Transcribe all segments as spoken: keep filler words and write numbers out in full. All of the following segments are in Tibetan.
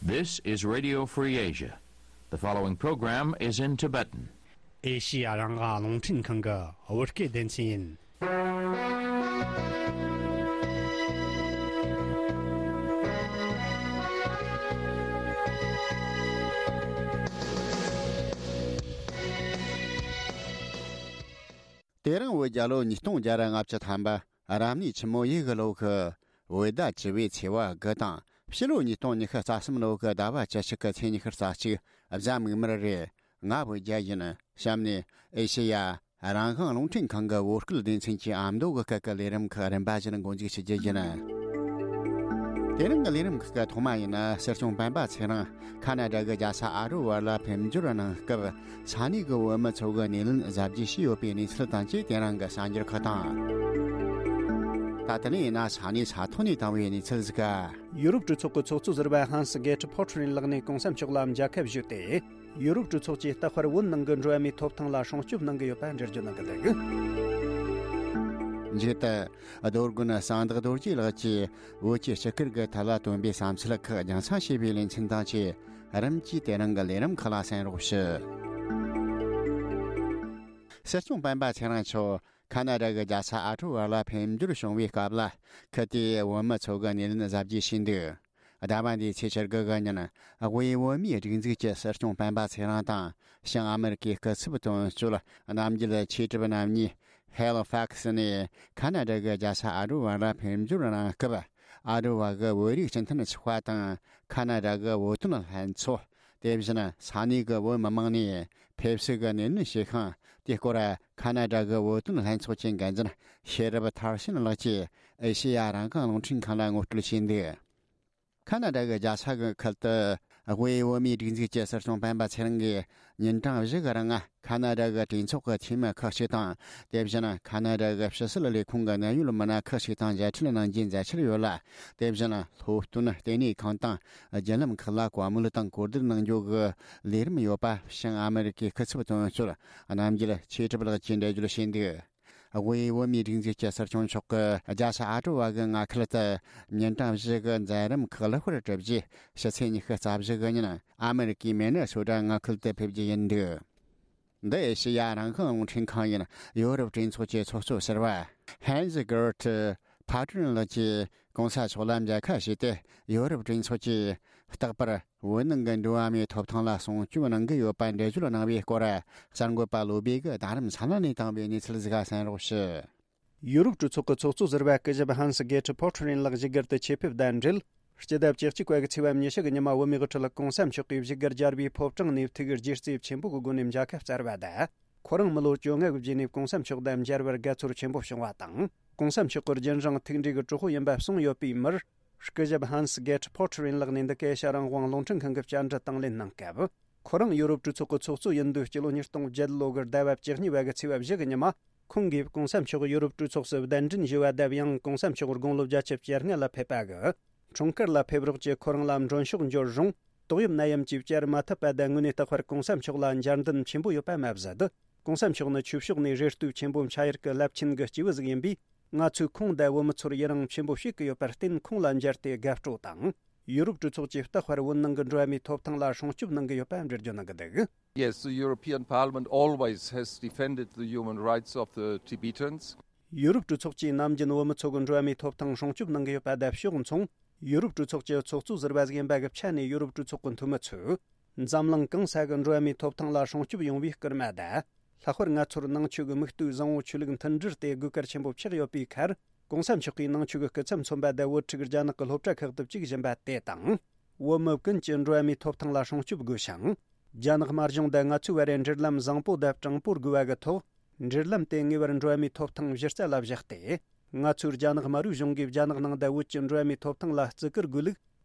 This is Radio Free Asia. The following program is in Tibetan. ཨེ་ཤི་ཡ་རང་དབང་རླུང་འཕྲིན་ཁང་གི་བོད་སྐད་སྡེ་ཚན་ཡིན། དེ་རིང་བོད་རྒྱལ་ལོ་ཉིས་སྟོང་བརྒྱ་ར་ལྔ་བཅུ་ཐམ་པ། རབ་གནས་ཆུ་མོ་ཡོས་གི་ལོ་གི་བོད་ཟླ་བཅུ་པའི་ཚེས་པ་དགུ་དང་། ཕྱི་ལོ་ཉིས་སྟོང་ཉི་ཤུ་རྩ་གསུམ་ལོ་གི་ཟླ་བ་བཅུ་གཅིག་གི་ཚེས་ཉི་ཤུ་རྩ་གཅིག་གཟའ་མིག་དམར་རེད། ང་བོད་རྒྱལ་ཡིན། གཤམ་ནས་ཨེ་ཤེ་ཡ་རང་དབང་རླུང་འཕྲིན་ཁང་གི་བོད་སྐད་སྡེ་ཚན་གྱི་ཨ་མདོ་གི་སྐད་ཀྱི་ལས་རིམ་ཁག་རིམ་པ་བཞིན་འགོ་འཛུགས་ཞུ་རྒྱུ་ཡིན། དེ་རིང་གི་ལས་རིམ་ཁག་གི་ཐོག་མ་ཡིན་ན། སྲིད་སྐྱོང་སྤེན་པ་ཚེ་རིང་ཁ་ན་ཌ་གི་རྒྱལ་ས་ཨ་ཊ་ཝ་ལ་ཕེབས་འབྱོར་གནང་སྐབས། ས་གནས་ཀྱི་བོད་མི་ཚོ་གི་སྣེ་ལེན་གཟབ་རྒྱས་བྱས་ཡོད་པའི་གནས་ཚུལ་དང་བཅས། དེ་རིང་གི་གསར་འགྱུར་ཁག་དང་། ད་ལྟ་ནས་ཡིན་ན་ས་གནས་ས་ཐོག་ནས་བཏང་བའི་གནས་ཚུལ་ཟིག་ག་ཡུ་རོབ་གྲོས་ཚོགས་ཀྱི་ཚོགས་གཙོ་ཟུར་པ་ཧན་སི་གེ་ཏི་ཕོ་ཊི་རིན་ལགས་ནས་གོང་ས་མཆོག་ལ་མཇལ་ཁ་ཞུས་ཏེ། ཡུ་རོབ་གྲོས་ཚོགས་ཀྱིས་རྟག་པར་བོད་ནང་གི་འགྲོ་བ་མིའི་ཐོབ་ཐང་ལ་སྲུང་སྐྱོབ་གནང་གི་ཡོད་པ་འགྲེལ་བརྗོད་གནང་གི་འདུག་མཇུག་ཏུ། རྡོ་དགོན་གསང་བདག་རྡོ་རྗེ་ལགས་ཀྱིས་བོད་ཀྱི་སྤྱི་ཁྱབ་ཀྱི་ཐད་ལ་བཏོན་པའི་བསམ་ཚུལ་ཁག་རྒྱང་སྲིང་བྱས་པའི་ལེ་ཚན་དང་བཅས། རིམ་གྱིས་དེ་རིང་གི་ལས་རིམ་ཁག་ལ་གསན་རོགས་ཞུ། སྲིད་སྐྱོང་སྤེན་པ་ཚེ་རིང་མཆོག་ཁ་ན་ཌ་གི་རྒྱལ་ས་ཨ་ཊ་ཝ་ལ་ཕེབས་འབྱོར་བྱུང་བའི་སྐབས་ལ། ཁུལ་དེའི་བོད་མི་ཚོ་གི་སྣེ་ལེན་གཟབ་རྒྱས་བྱས་འདུག་ཟླ་བ་འདིའི་ཚེས་བཅུ་དགུ་གི་ཉིན། དབུས་བོད་མིའི་སྒྲིག་འཛུགས་ཀྱི་སྲིད་སྐྱོང་སྤེན་པ་ཚེ་རིང་དང་། བྱང་ཨ་མེ་རི་ཀའི་སྐུ་ཚབ་དོན་གཅོད་རྣམ་རྒྱལ་ཆོས་གྲུབ་རྣམ་གཉིས། ཧེ་ལི་ཕག་སི་ནས་ཁ་ན་ཌ་གི་རྒྱལ་ས་ཨ་ཊ་ཝ་ལ་ཕེབས་འབྱོར་གནང་སྐབས། ཨ་ཊ་ཝ་གི་བོད་རིགས་སྤྱི་མཐུན་ཚོགས་པ་དང་། ཁ་ན་ཌ་གི་བོད་དོན་ལྷན་ཚོགས། དེ་བཞིན་ས་གནས་ཀྱི་བོད་མི་མང་ནས་ཕེབས་བསུ་གི་སྣེ་ལེན་བྱས་ཤིང་། དེའི་སྐོར་ཁ་ན་ཌ་གི་བོད་དོན་ལྷན་ཚོགས་ཀྱི་འགན་འཛིན་ཤེས་རབ་མཐར་ཕྱིན་ལགས་ཀྱིས་ཨེ་ཤེ་ཡ་རང་དབང་རླུང་འཕྲིན་ཁང་ལ་ངོ་སྤྲོད་བྱས་འདུག་ཁ་ན་ཌ་གི་རྒྱལ་ས་གི་ཁུལ་དུ། དབུས་བོད་མིའི་སྒྲིག་འཛུགས་ཀྱི་སྲིད་སྐྱོང་སྤེན་པ་ཚེ་རིང་གིས་ཉིན་གྲངས་བཞི་གི་རིང་ཁ་ན་ཌ་གི་གྲོས་ཚོགས་ཀྱི་འཐུས་མི་ཁག་ཅིག་དང་། དེ་བཞིན་ཁ་ན་ཌ་གི་ཕྱི་སྲིད་ལས་ཁུངས་ཀྱི་གནད་ཡོད་མི་སྣ་ཁག་ཅིག་དང་མཇལ་འཕྲད་གནང་རྒྱུའི་མཛད་འཆར་ཡོད་ལ། དེ་བཞིན་སློབ་སྟོན་ལྟེ་གནས་ཁང་དང་བརྒྱུད་ལམ་ཁག་ལ་བཀའ་མོལ་དང་གོ་བསྡུར་གནང་རྒྱུ་གི་ལས་རིམ་ཡོད་པ། བྱང་ཨ་མེ་རི་ཀའི་སྐུ་ཚབ་དོན་གཅོད་རྣམ་རྒྱལ་ཆོས་གྲུབ་ལགས་ཀྱིས་འགྲེལ་བརྗོད་བྱས་འདུག་དབུས་བོད་མིའི་སྒྲིག་འཛུགས་ཀྱི་སྲིད་སྐྱོང་མཆོག་གིས་རྒྱལ་ས་ཨ་ཀྲོ་བ་གི་མངའ་ཁུལ་དུ་ཉིན་གྲངས་བཞི་གི་མཛད་རིམ་ཁག་ལེགས་པར་གྲུབ་རྗེས། ཕྱི་ཚེས་ཉི་ཤུ་རྩ་བཞི་གི་ཉིན་ཨ་མེ་རི་ཀའི་མེ་ནི་སོ་ཊ་མངའ་ཁུལ་དུ་ཕེབས་རྒྱུ་ཡིན་འདུག་འདི་ཨེ་ཤེ་ཡ་རང་དབང་རླུང་འཕྲིན་ཁང་ཡིན། ཡོ་རོབ་གྲོས་ཚོགས་ཀྱི་ཚོགས་གཙོ་ཟུར་པ་ཧན་ཛི་གེར་ཊི་ཕ་ཀྲུན་ལགས་ཀྱིས་གོང་ས་མཆོག་ལ་མཇལ་ཁ་ཞུས་ཏེ། ཡོ་རོབ་གྲོས་ཚོགས་ཀྱིས་རྟག་པར་བོད་ནང་གི་འགྲོ་བ་མིའི་ཐོབ་ཐང་ལ་སྲུང་སྐྱོབ་གནང་གི་ཡོད་པ་འགྲེལ་བརྗོད་གནང་བའི་སྐོར། གསར་འགོད་པ་བློ་བྷེ་གིས་རྡ་རམ་ས་ལ་ནས་བཏང་བའི་གནས་ཚུལ་ཟིག་ག་གསན་རོགས་ཞུ། ཡུ་རོབ་གྲོས་ཚོགས་ཀྱི་ཚོགས་གཙོ་ཟུར་པ་སྐུ་ཞབས་ཧན་སི་གེ་ཊི་ཕོ་ཊི་རིན་ལགས་བཞུགས་སྒར་དུ་ཆེད་ཕེབས་དང་འབྲེལ། སྤྱི་ཟླ་བཅུ་གཅིག་པ་གི་ཚེས་པ་ཉི་ཤུ་གི་ཉི་མ་བོད་མིའི་དབུ་ཁྲིད་གོང་ས་མཆོག་གིས་བཞུགས་སྒར་རྒྱལ་བའི་ཕོ་བྲང་ནས་ཐུགས་རྗེ་བརྩེ་ཆེན་པོ་གི་སྒོ་ནས་མཇལ་ཁ་བསྩལ་བ་དང་། ཁོ་རང་མི་ལོ་བཅོ་ལྔ་གི་རྗེས་ནས་གོང་ས་མཆོག་དང་མཇལ་བར་དགའ་ཚོར་ཆེན་པོ་བྱུང་བ་དང་། གོང་ས་མཆོག་གི་རྒྱུན་རིང་ཐུགས་འདྲིས་ཀྱི་གྲོགས་པོ་ཡིན་པ་གསུངས་ཡོད་པའི་མིར། སྐུ་ཞབས་ཧན་སི་གེ་ཊི་ཕོ་ཊི་རིན་ལགས་ནས་འདི་ག་ཨེ་ཤ་ཡ་རང་དབང་རླུང་འཕྲིན་ཁང་གི་བཅར་འདྲི་དང་ལེན་གནང་སྐབས། ཁོ་རང་ཡུ་རོབ་གྲོས་ཚོགས་ཀྱི་ཚོགས་གཙོ་ཡིན་དུས་སྤྱི་ལོ་ཉིས་སྟོང་བརྒྱད་ལོ་གི་ཟླ་བ་བཅུ་གཉིས་པ་གི་ཚེས་པ་བཞི་གི་ཉི་མ། ཁོང་གིས་གོང་ས་མཆོག་ཡུ་རོབ་གྲོས་ཚོགས་སུ་གདན་འདྲེན་ཞུས་པ་དང་། ཡང་གོང་ས་མཆོག་དགུང་ལོ་བརྒྱད་ཅུ་གྱ་ལྔ་ལ་ཕེབས་པ་གི་འཁྲུངས་སྐར་ལ་ཕེབས་རོགས་ཀྱིས་ཁོ་རང་ལ་མགྲོན་ཤོག་འབྱོར་རུང་། ཏོག་དབྱིབས་ནད་ཡམས་ཀྱིས་བསྐྱར་མ་ཐུབ་པ་དང་། དངོས་གནས་རྟག་པར་གོང་ས་མཆོག་ལ་མཇལ་འདུན་ཆེན་པོ་ཡོད་པ་མ་ཟད། གོང་ས་མཆོག་ནི་ཆོས་ཕྱོགས་ནས་རེ་ལྟོས་ཆེན་པོ་འཆའ་ཡུལ་གྱི་རླབས་ཆེན་གྱི་སྐྱེས་བུ་ཟིག་ཡིན་པས། ང་ཚོས་ཁོང་དང་བོད་མི་ཚོར་ཡི་རང་ཆེན་པོ་བྱེད་ཀྱི་ཡོད་པར་བརྟེན། ཁོང་ལ་མཇལ་ཏེ་དགའ་སྤྲོ་དང་། ཡུ་རོབ་གྲོས་ཚོགས་ཀྱིས་རྟག་པར་བོད་ནང་གི་འགྲོ་བ་མིའི་ཐོབ་ཐང་ལ་སྲུང་སྐྱོབ་གནང་གི་ཡོད་པ་འགྲེལ་བརྗོད་གནང་གི་འདུག Yes, the European Parliament always has defended the human rights of the Tibetans. ཡུ་རོབ་གྲོས་ཚོགས་ཀྱིས་ནམ་རྒྱུན་བོད་མི་ཚོ་གི་འགྲོ་བ་མིའི་ཐོབ་ཐང་སྲུང་སྐྱོབ་གནང་གི་ཡོད་པ་དང་། ཕྱོགས་མཚུངས། ཡུ་རོབ་གྲོས་ཚོགས་ཀྱི་ཚོགས་གཙོ་ཟུར་པ་ཟིག་ཡིན་པ་གི་ཆ་ནས། ཡུ་རོབ་གྲོས་ཚོགས་ཀྱི་འཐུས་མི་ཚོས་འཛམ་གླིང་གང་ས་གི་འགྲོ་བ་མིའི་ཐོབ་ཐང་ལ་སྲུང་སྐྱོབ་ཡོང་བའི་སྐུལ་མ་དང་། ལྷག་པར་ང་ཚོར་ནང་ཆོས་ཀྱི་མིག་ལྟོས་བཟང་བོ་ཆོས་ལུགས་མཐུན་སྒྲིལ་དེ་དགོས་གལ་ཆེན་པོ་ཆགས་ཡོད་པའི་ཁར། གོང་ས་མཆོག་གིས་ནང་ཆོས་ཀྱི་སྐུ་ཚབ་མཚོན་པ་དང་། བོད་ཕྲུག་རྒྱ་ནག་གི་སློབ་གྲྭ་ཁག་ཏུ་བཅུག་བཞིན་པ་དེ་དང་། བོད་མི་ཀུན་གྱི་འགྲོ་བ་མིའི་ཐོབ་ཐང་ལ་སྲུང་སྐྱོབ་དགོས་ཤིང་། རྒྱ་ནག་དམར་གཞུང་དང་ང་ཚོའི་བར་རའི་འབྲེལ་ལམ་བཟང་པོ་དང་དྲང་པོར་དགོས་པ་གི་ཐོག་འབྲེལ་ལམ་དེ་ངེས་པར་འགྲོ་བ་མིའི་ཐོབ་ཐང་གཞི་རྩ་ལ་བཞག་སྟེ། ང་ཚོའི་རྒྱ་ནག་དམར་པོའི་གཞུང་གིས་རྒྱ་ནག་ནང་དང་བོད་ཀྱི་འགྲོ་བ་མིའི་ཐོབ་ཐང་ལ་བརྩི་བཀུར་དགོས་ལུགས་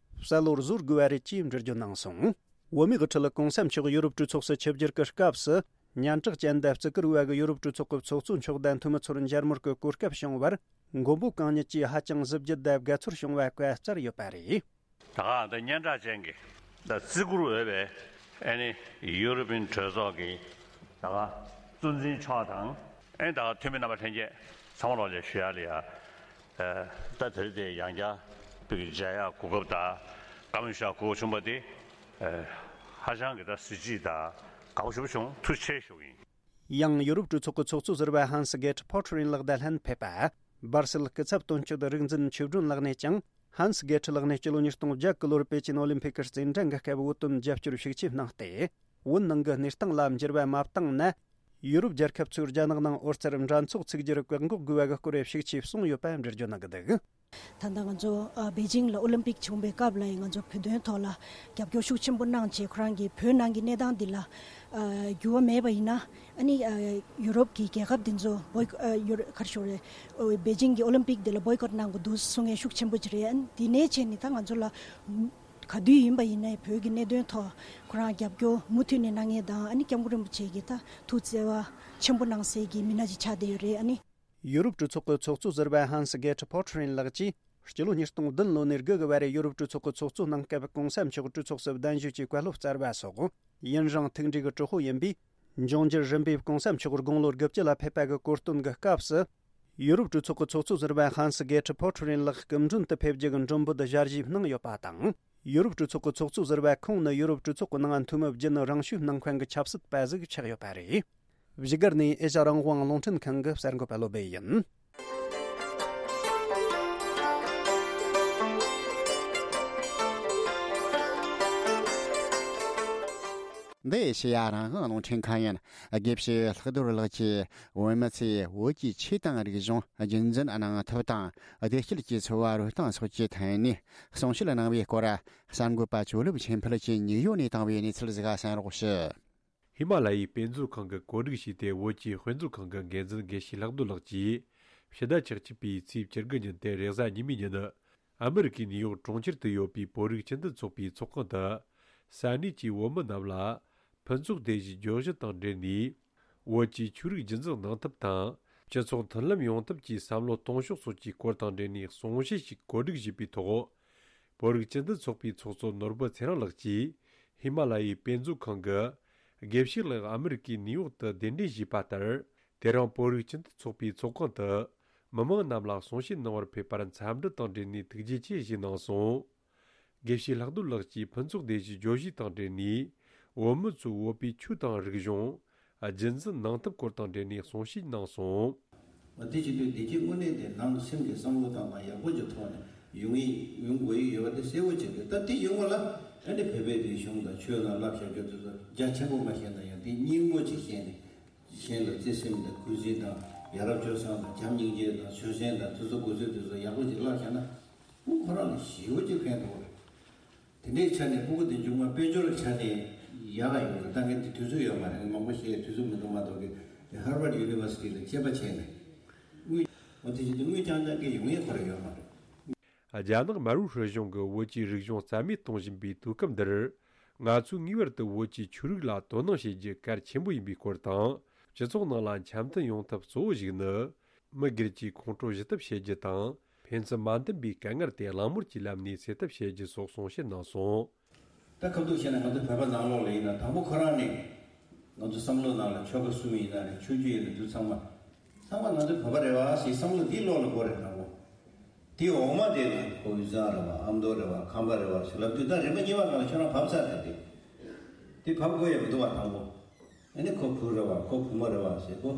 གསལ་བོར་བཟོ་དགོས་པ་རེད་ཅེས་འགྲེལ་བརྗོད་གནང་སོང་། བོད་མིའི་དབུ་ཁྲིད་གོང་ས་མཆོག་ཡུ་རོབ་གྲོས་ཚོགས་སུ་ཆིབས་བསྒྱུར་གྱི་སྐབས་སུ། སྙན་གྲགས་ཅན་དང་བརྩི་བཀུར་བ་གི་ཡུ་རོབ་གྲོས་ཚོགས་ཀྱི་ཚོགས་གཙོ་མཆོག་དང་འཐུས་མི་ཚོར་མཇལ་མོལ་གྱི་གོ་སྐབས་བྱུང་བར། མགོན་པོ་གང་ཉིད་ཀྱིས་ཧ་ཅང་གཟི་བརྗིད་དང་དགའ་ཚོར་བྱུང་བ་བཀའ་སྩལ་ཡོད་པ་རེད། ད་ག་ད་སྙན་གྲགས་ཅན་གྱི་ད་བརྩི་བཀུར་འོས་པའི་ཨ་ནི་ཡུ་རོ་པིན་གྲོས་ཚོགས་ཀྱི་ད་ག་གཙོ་འཛིན་མཆོག་དང་། ཨ་ནི་ད་ག་འཐུས་མི་རྣམ་པ་ལྷན་རྒྱས་ཚང་མ་ལོག་ལས་ཞུ་ཡག་ལ་ཡ། ད་དེ་རིང་དེ་ཡང་བསྐྱར་བོད་ཀྱི་མཇལ་ཡག་གོ་སྐབས་དང་ བཀའ་མོལ་བྱ་དགོས་བྱུང་བ་དེ་ཨ་ཧ་ཅང་གི་ད་གཟི་བརྗིད་དང་དགའ་པོ་ཞེ་པོ་བྱུང་། ཐུགས་རྗེ་ཆེ་ཞུ་གི་ཡིན། ཡང་ཡུ་རོབ་གྲོས་ཚོགས་ཀྱི་ཚོགས་གཙོ་ཟུར་པ་ཧན་སི་གེ་ཏྲི་ཕོ་ཁྲི་རིན་ལགས་དང་ལྷན་ཕེབས་པ། སྦར་སིལ་སྐུ་ཚབ་དོན་གཅོད་རིག་འཛིན་ཆོས་སྒྲོན་ལགས་ནས་ཀྱང་ཧན་སི་གེ་ཏྲི་ལགས་ནས་སྤྱི་ལོ་ཉིས་སྟོང་བརྒྱད་གི་ལོར་པེ་ཅིན་ཨོ་ལིམ་ཕིག་གི་རྩེད་འགྲན་གྱི་སྐབས་བོད་དོན་རྒྱབ་སྐྱོར་ཤུགས་ཆེ་གནང་སྟེ། བོད་ནང་གི་གནས་སྟངས་ལ་འགྱུར་བ་མ་བཏང་ན། ཡུ་རོབ་རྒྱལ་ཁབ་ཚོས་རྒྱ་ནག་ནང་ཨོ་རྩར་འདྲ་ཚོགས་ཚུགས་རྒྱུར་བཀག་འགོག་དགོས་པ་གི་སྐོར་ཤུགས་ཆེ་གསུངས་ཡོད་པ་འགྲེལ་བརྗོད་གནང་གི་འདུག། ད་ལྟ་ང་ཚོ་ཨ་པེ་ཅིང་ལ་ཨོ་ལིམ་པིག་བྱུང་བའི་སྐབས་ལ་ཡང་ང་ཚོ་བོད་དོན་ཐོག་ལ་རྒྱབ་སྐྱོར་ཤུགས་ཆེན་པོ་གནང་བྱས། ཁོ་རང་གིས་བོད་ནང་གི་གནས་སྟངས་འདི་ལ་ཨ་འགྱུར་བ་མེད་པ་ཡིན་ན། ཨ་ནི་ཨ་ཡུ་རོབ་ཀྱི་རྒྱལ་ཁབ་འདི་ཚོ་བོའི་ཨ་ཡུ་རོ་ག་རེ་ཞུ་རེད། ཨོ་པེ་ཅིང་གི་ཨོ་ལིམ་པིག་འདི་ལ་བོའི་ཀོཊ་གནང་དགོས་འདུག་གསུང་མཁན་ཤུགས་ཆེན་པོ་ཅིག་རེད། ཨ་ནི་འདི་ནས་བྱས་ནས་ད་ང་ཚོ་ལ་ག་དུས་ཡིན་པ་ཡིན་ནའི་བོད་ཀྱི་གནད་དོན་ཐོག་ཁོ་རང་རྒྱབ་སྐྱོར་མུ་མཐུད་ནས་གནང་མཁན་དང་། ཨ་ནི་སྐྱབས་མགོན་རིན་པོ་ཆེ་གིས་ད་ཐུགས་བརྩེ་བ་ཆེན་པོ་གནང་སའི་གི་མི་སྣ་ཅིག་ཆགས་བསྡད་ཡོད་རེད། ཨ་ནི། ཡུ་རོབ་གྲོས་ཚོགས་ཀྱི་ཚོགས་གཙོ་ཟུར་པ་ཧན་སི་གེ་ཏྲི་ཕོ་ཁྲི་རིན་ལགས་ཀྱིས་སྤྱི་ལོ་ཉིས་སྟོང་བདུན་ལོ་ནས་དགུ་གི་བར་ཡུ་རོབ་གྲོས་ཚོགས་ཀྱི་ཚོགས་གཙོ་གནང་སྐབས་གོང་ས་མཆོག་གྲོས་ཚོགས་སུ་གདན་ཞུས་ཀྱི་བཀའ་སློབ་སྩལ་བ་སོགས། ཡུན་རིང་ཐུགས་འདྲིས་ཀྱི་དྲག་པོ་ཡིན་པས། འབྱུང་འགྱུར་རིམ་པས་གོང་ས་མཆོག་དགུང་ལོ་དགུ་བཅུ་ལ་ཕེབས་པ་གི་གོ་སྟོན་གྱི་སྐབས་སུ། ཡུ་རོབ་གྲོས་ཚོགས་ཀྱི་ཚོགས་གཙོ་ཟུར་པ་ཧན་སི་གེ་ཏྲི་ཕོ་ཁྲི་རིན་ལགས་སྐུ་མགྲོན་དུ་ཕེབས་རྒྱུ་གི་མགྲོན་འབོད་ཞལ་བཞེས་གནང་ཡོད་པ་དང་། ཡུ་རོབ་གྲོས་ཚོགས་ཀྱི་ཚོགས་གཙོ་ཟུར་པ་ཁོང་ནི་ཡུ་རོབ་གྲོས་ཚོགས་ཀྱི་ནང་འཐུས་མི་བརྒྱུད་ནས་རང་ཤུགས་གནང་མཁན་གྱི་ཆབ་སྲིད་པ་ཟིག་ཆགས་ཡོད་པ་རེད། བཞུགས་སྒར་ནས་ཨེ་ཤ་རང་དབང་རླུང་འཕྲིན་ཁང་གི་གསར་འགོད་པ་བློ་སྦེ་ཡིན། འདི་ཨེ་ཤེ་ཡ་རང་དབང་རླུང་འཕྲིན་ཁང་ཡིན། དགེ་བཤེས་ལྷག་རྡོར་ལགས་ཀྱིས་བོད་མི་ཚོས་བོད་ཀྱི་ཆོས་དང་རིག་གཞུང་། རྒྱུན་འཛིན་གནང་ཐབས་དང་བདེ་སྐྱིད་ཀྱི་འཚོ་བ་རོལ་སྟངས་སོགས་ཀྱི་ཐད་ནས་གསུང་བཤད་གནང་བའི་སྐོར། གསར་འགོད་པ་ཇོ་ལེབ་ཆོས་འཕེལ་གྱིས་ནིའུ་ཡོག་ནས་བཏང་བའི་གནས་ཚུལ་ཟིག་གསན་རོགས་ཞུ། ཧི་མ་ལ་ཡའི་དཔེ་མཛོད་ཁང་གི་བཀོད་སྒྲིག་བྱས་ཏེ། བོད་ཀྱི་དཔེ་མཛོད་ཁང་གི་འགན་འཛིན་དགེ་བཤེས་ལྷག་རྡོར་ལགས་ཀྱིས་ཕྱི་ཟླ་བཅུ་གཅིག་པའི་ཚེས་བཅུ་དགུ་ཉིན་ཏེ་རེས་གཟའ་ཉི་མའི་ཉིན། ཨ་མི་རི་ཀའི་ནིའུ་ཡོག་གྲོང་ཁྱེར་དུ་ཡོད་པའི་བོད་རིགས་སྤྱི་མཐུན་ཚོགས་པའི་ཚོགས་ཁང་དུ། ས་གནས་ཀྱི་བོད་མི་རྣམས་ལ་ཕུན་ཚོགས་སྡེ་བཞིའི་བརྗོད་གཞི་དང་འབྲེལ་ནས། བོད་ཀྱི་ཆོས་རིག་རྒྱུན་འཛིན་གནང་ཐབས་དང་། སྤྱི་ཚོགས་མཐུན་ལམ་ཡོང་ཐབས་ཀྱི་བསམ་བློ་གཏོང་ཕྱོགས་སོགས་ཀྱི་སྐོར་དང་འབྲེལ་ནས་གསུང་བཤད་ཞིག་བཀོད་སྒྲིག་བྱས་པའི་ཐོག་བོད་རིགས་སྤྱི་མཐུན་ཚོགས་པའི་ཚོགས་གཙོ་ནོར་བུ་ཚེ་རིང་ལགས་ཀྱིས། ཧི་མ་ལ་ཡའི་དཔེ་མཛོད་ཁང་གི་དགེ་བཤེས་ལགས་ཨ་མི་རི་ཀའི་ནིའུ་ཡོག་ཏུ་གདན་འདྲེན་ཞུས་པ་ལྟར། དེ་རིང་བོད་རིགས་སྤྱི་མཐུན་ཚོགས་པའི་ཚོགས་ཁང་དུ་མི་མང་རྣམས་ལ་གསུང་བཤད་གནང་བར་ཕེབས་པར་འཚམས་འདྲི་དང་འབྲེལ་ནས་ཐུགས་རྗེ་ཆེ་ཞུས་གནང་སོང་། དགེ་བཤེས་ལྷག་རྡོར་ལགས་ཀྱིས་ཕུན་ཚོགས་སྡེ་བཞིའི་བརྗོད་གཞི་དང་འབྲེལ་ནས། བོད་མི་ཚོས་བོད་པའི་ཆོས་དང་རིག་གཞུང་། རྒྱུན་འཛིན་གནང་ཐབས་སྐོར་དང་འབྲེལ་ནས་གསུང་བཤད་གནང་སོང་། འོ་དེ་བྱེད་དུས་བདེ་སྐྱིད་དངོས་གནས་དེ་ནང་སེམས་ཀྱི་བསམ་བློ་བཏང་སྟངས་ཡག་པོ་ཅིག་ཐོག་ནས་ཡོང་ངེས་ཡོང་དགོས་ཡི་ཡོད་པ་དེ་གསལ་པོ་བྱེད་དགོས། ད་དེ་ཡོང་བ་ལ་ཨ་ནི་བོད་པའི་རིག་གཞུང་དང་ཆོས་ལ་བསླབ་བྱ་རྒྱུ་དེ་ཚོ་རྒྱ་ཆེན་པོ་མ་བཤད་ན་ཡང་དེ་སྙིང་པོ་ཅིག་བཤད་ནས། གཞན་ལ་བརྩེ་སེམས་དང་གུས་བརྩི་དང་། ཡ་རབས་སྤྱོད་བཟང་དང་བྱམས་སྙིང་རྗེ་དང་། ཆོས་སེམས་དང་དེ་ཚོ་དགོས་ཚུལ་དེ་ཚོ་ཡག་པོ་ཅིག་བསླབ་བྱས་ན། ཁོ་རང་ལ་ཞེ་པོ་ཅིག་ཕན་ཐོགས་རེད། དེ་འདྲའི་ཆ་ནས་སྤུ་གུ་དེ་མཇུག་མ་དཔལ་འབྱོར་གྱི་ཆ་ནས་ཡག་ག་ཡོད་རེད། ད་ངས་དེ་དུས་ཚོད་ཡོད་མ་རེད། ངས་མང་པོ་བཤད་དུས་ཚོད་མི་འདུག་མ་གཏོགས་ཀྱི། དེ་ཧར་ཝརཌ་ཡུ་ནི་ཝར་སི་ཊི་ལ་དཔྱད་པ་བྱས་ནས། དངུལ། འོ་དེ་བཞིན་དུ་དངུལ་རྐྱང་རྐྱང་གི་ཡོང་ཡས་ཁོ་རང་ཡོད་མ་རེད། རྒྱ་ནག་མར་པོ་ཧྲི་གཞུང་གིས་བོད་ཀྱི་རིག་གཞུང་རྩ་མེད་གཏོང་བཞིན་པའི་དུས་སྐབས་འདིར། ང་ཚོས་ངེས་པར་དུ་བོད་ཀྱི་ཆོས་རིག་ལ་དོ་སྣང་བྱེད་རྒྱུ་གལ་ཆེན་པོ་ཡིན་པའི་སྐོར་དང་། སྤྱི་ཚོགས་ནང་ལ་འཆམ་མཐུན་ཡོང་ཐབས་གཙོ་བོ་ཞིག་ནི། མི་སྒེར་གྱི་ཁོང་ཁྲོ་ཞི་ཐབས་བྱེད་རྒྱུ་དང་། ཕན་ཚུན་མ་མཐུན་པའི་དཀའ་ངལ་དེ་གླེང་མོལ་གྱི་ལམ་ནས་སེལ་ཐབས་བྱེད་རྒྱུ་སོགས་གསུང་བཤད་གནང་སོང་། ད་ཁ་ཐུག་བཤད་ན་ང་ཚོ་བོད་པ་ནང་ལོགས་ལ་ཡིན་ན་དང་པོ་ཁོ་རང་ནས་ང་ཚོ་བསམ་བློ་ནང་ལ་ཆོལ་ཁ་གསུམ་ཡིན་ན་རེད། ཆོས་བརྒྱུད་ཡིན་ན་འདུག་ཚང་མ། ཚང་མ་ང་ཚོ་བོད་པ་རེད་བ་ཞེས་བསམ་བློ་འདི་བློ་ལ་འཁོར་རེད་དང་པོ། དེའི་འོག་མ་དེ་ལ་ཁོ་དབུས་གཙང་རེད་བ། ཨ་མདོ་རེད་བ། ཁམས་པ་རེད་བ་ཞེས་ལབ་དུས་ད་རིམ་པ་གཉིས་པ་སྒང་ལ་ཁྱོད་རང་བབས་ཚར་རེད་དེ། དེ་བབས་དགོས་ཡ་མི་འདུག་བ་དང་པོ། ཨ་ནི་ཁོ་བུ་རེད་བ། ཁོ་བུ་མོ་རེད་བ་ཞེས་ཁོ་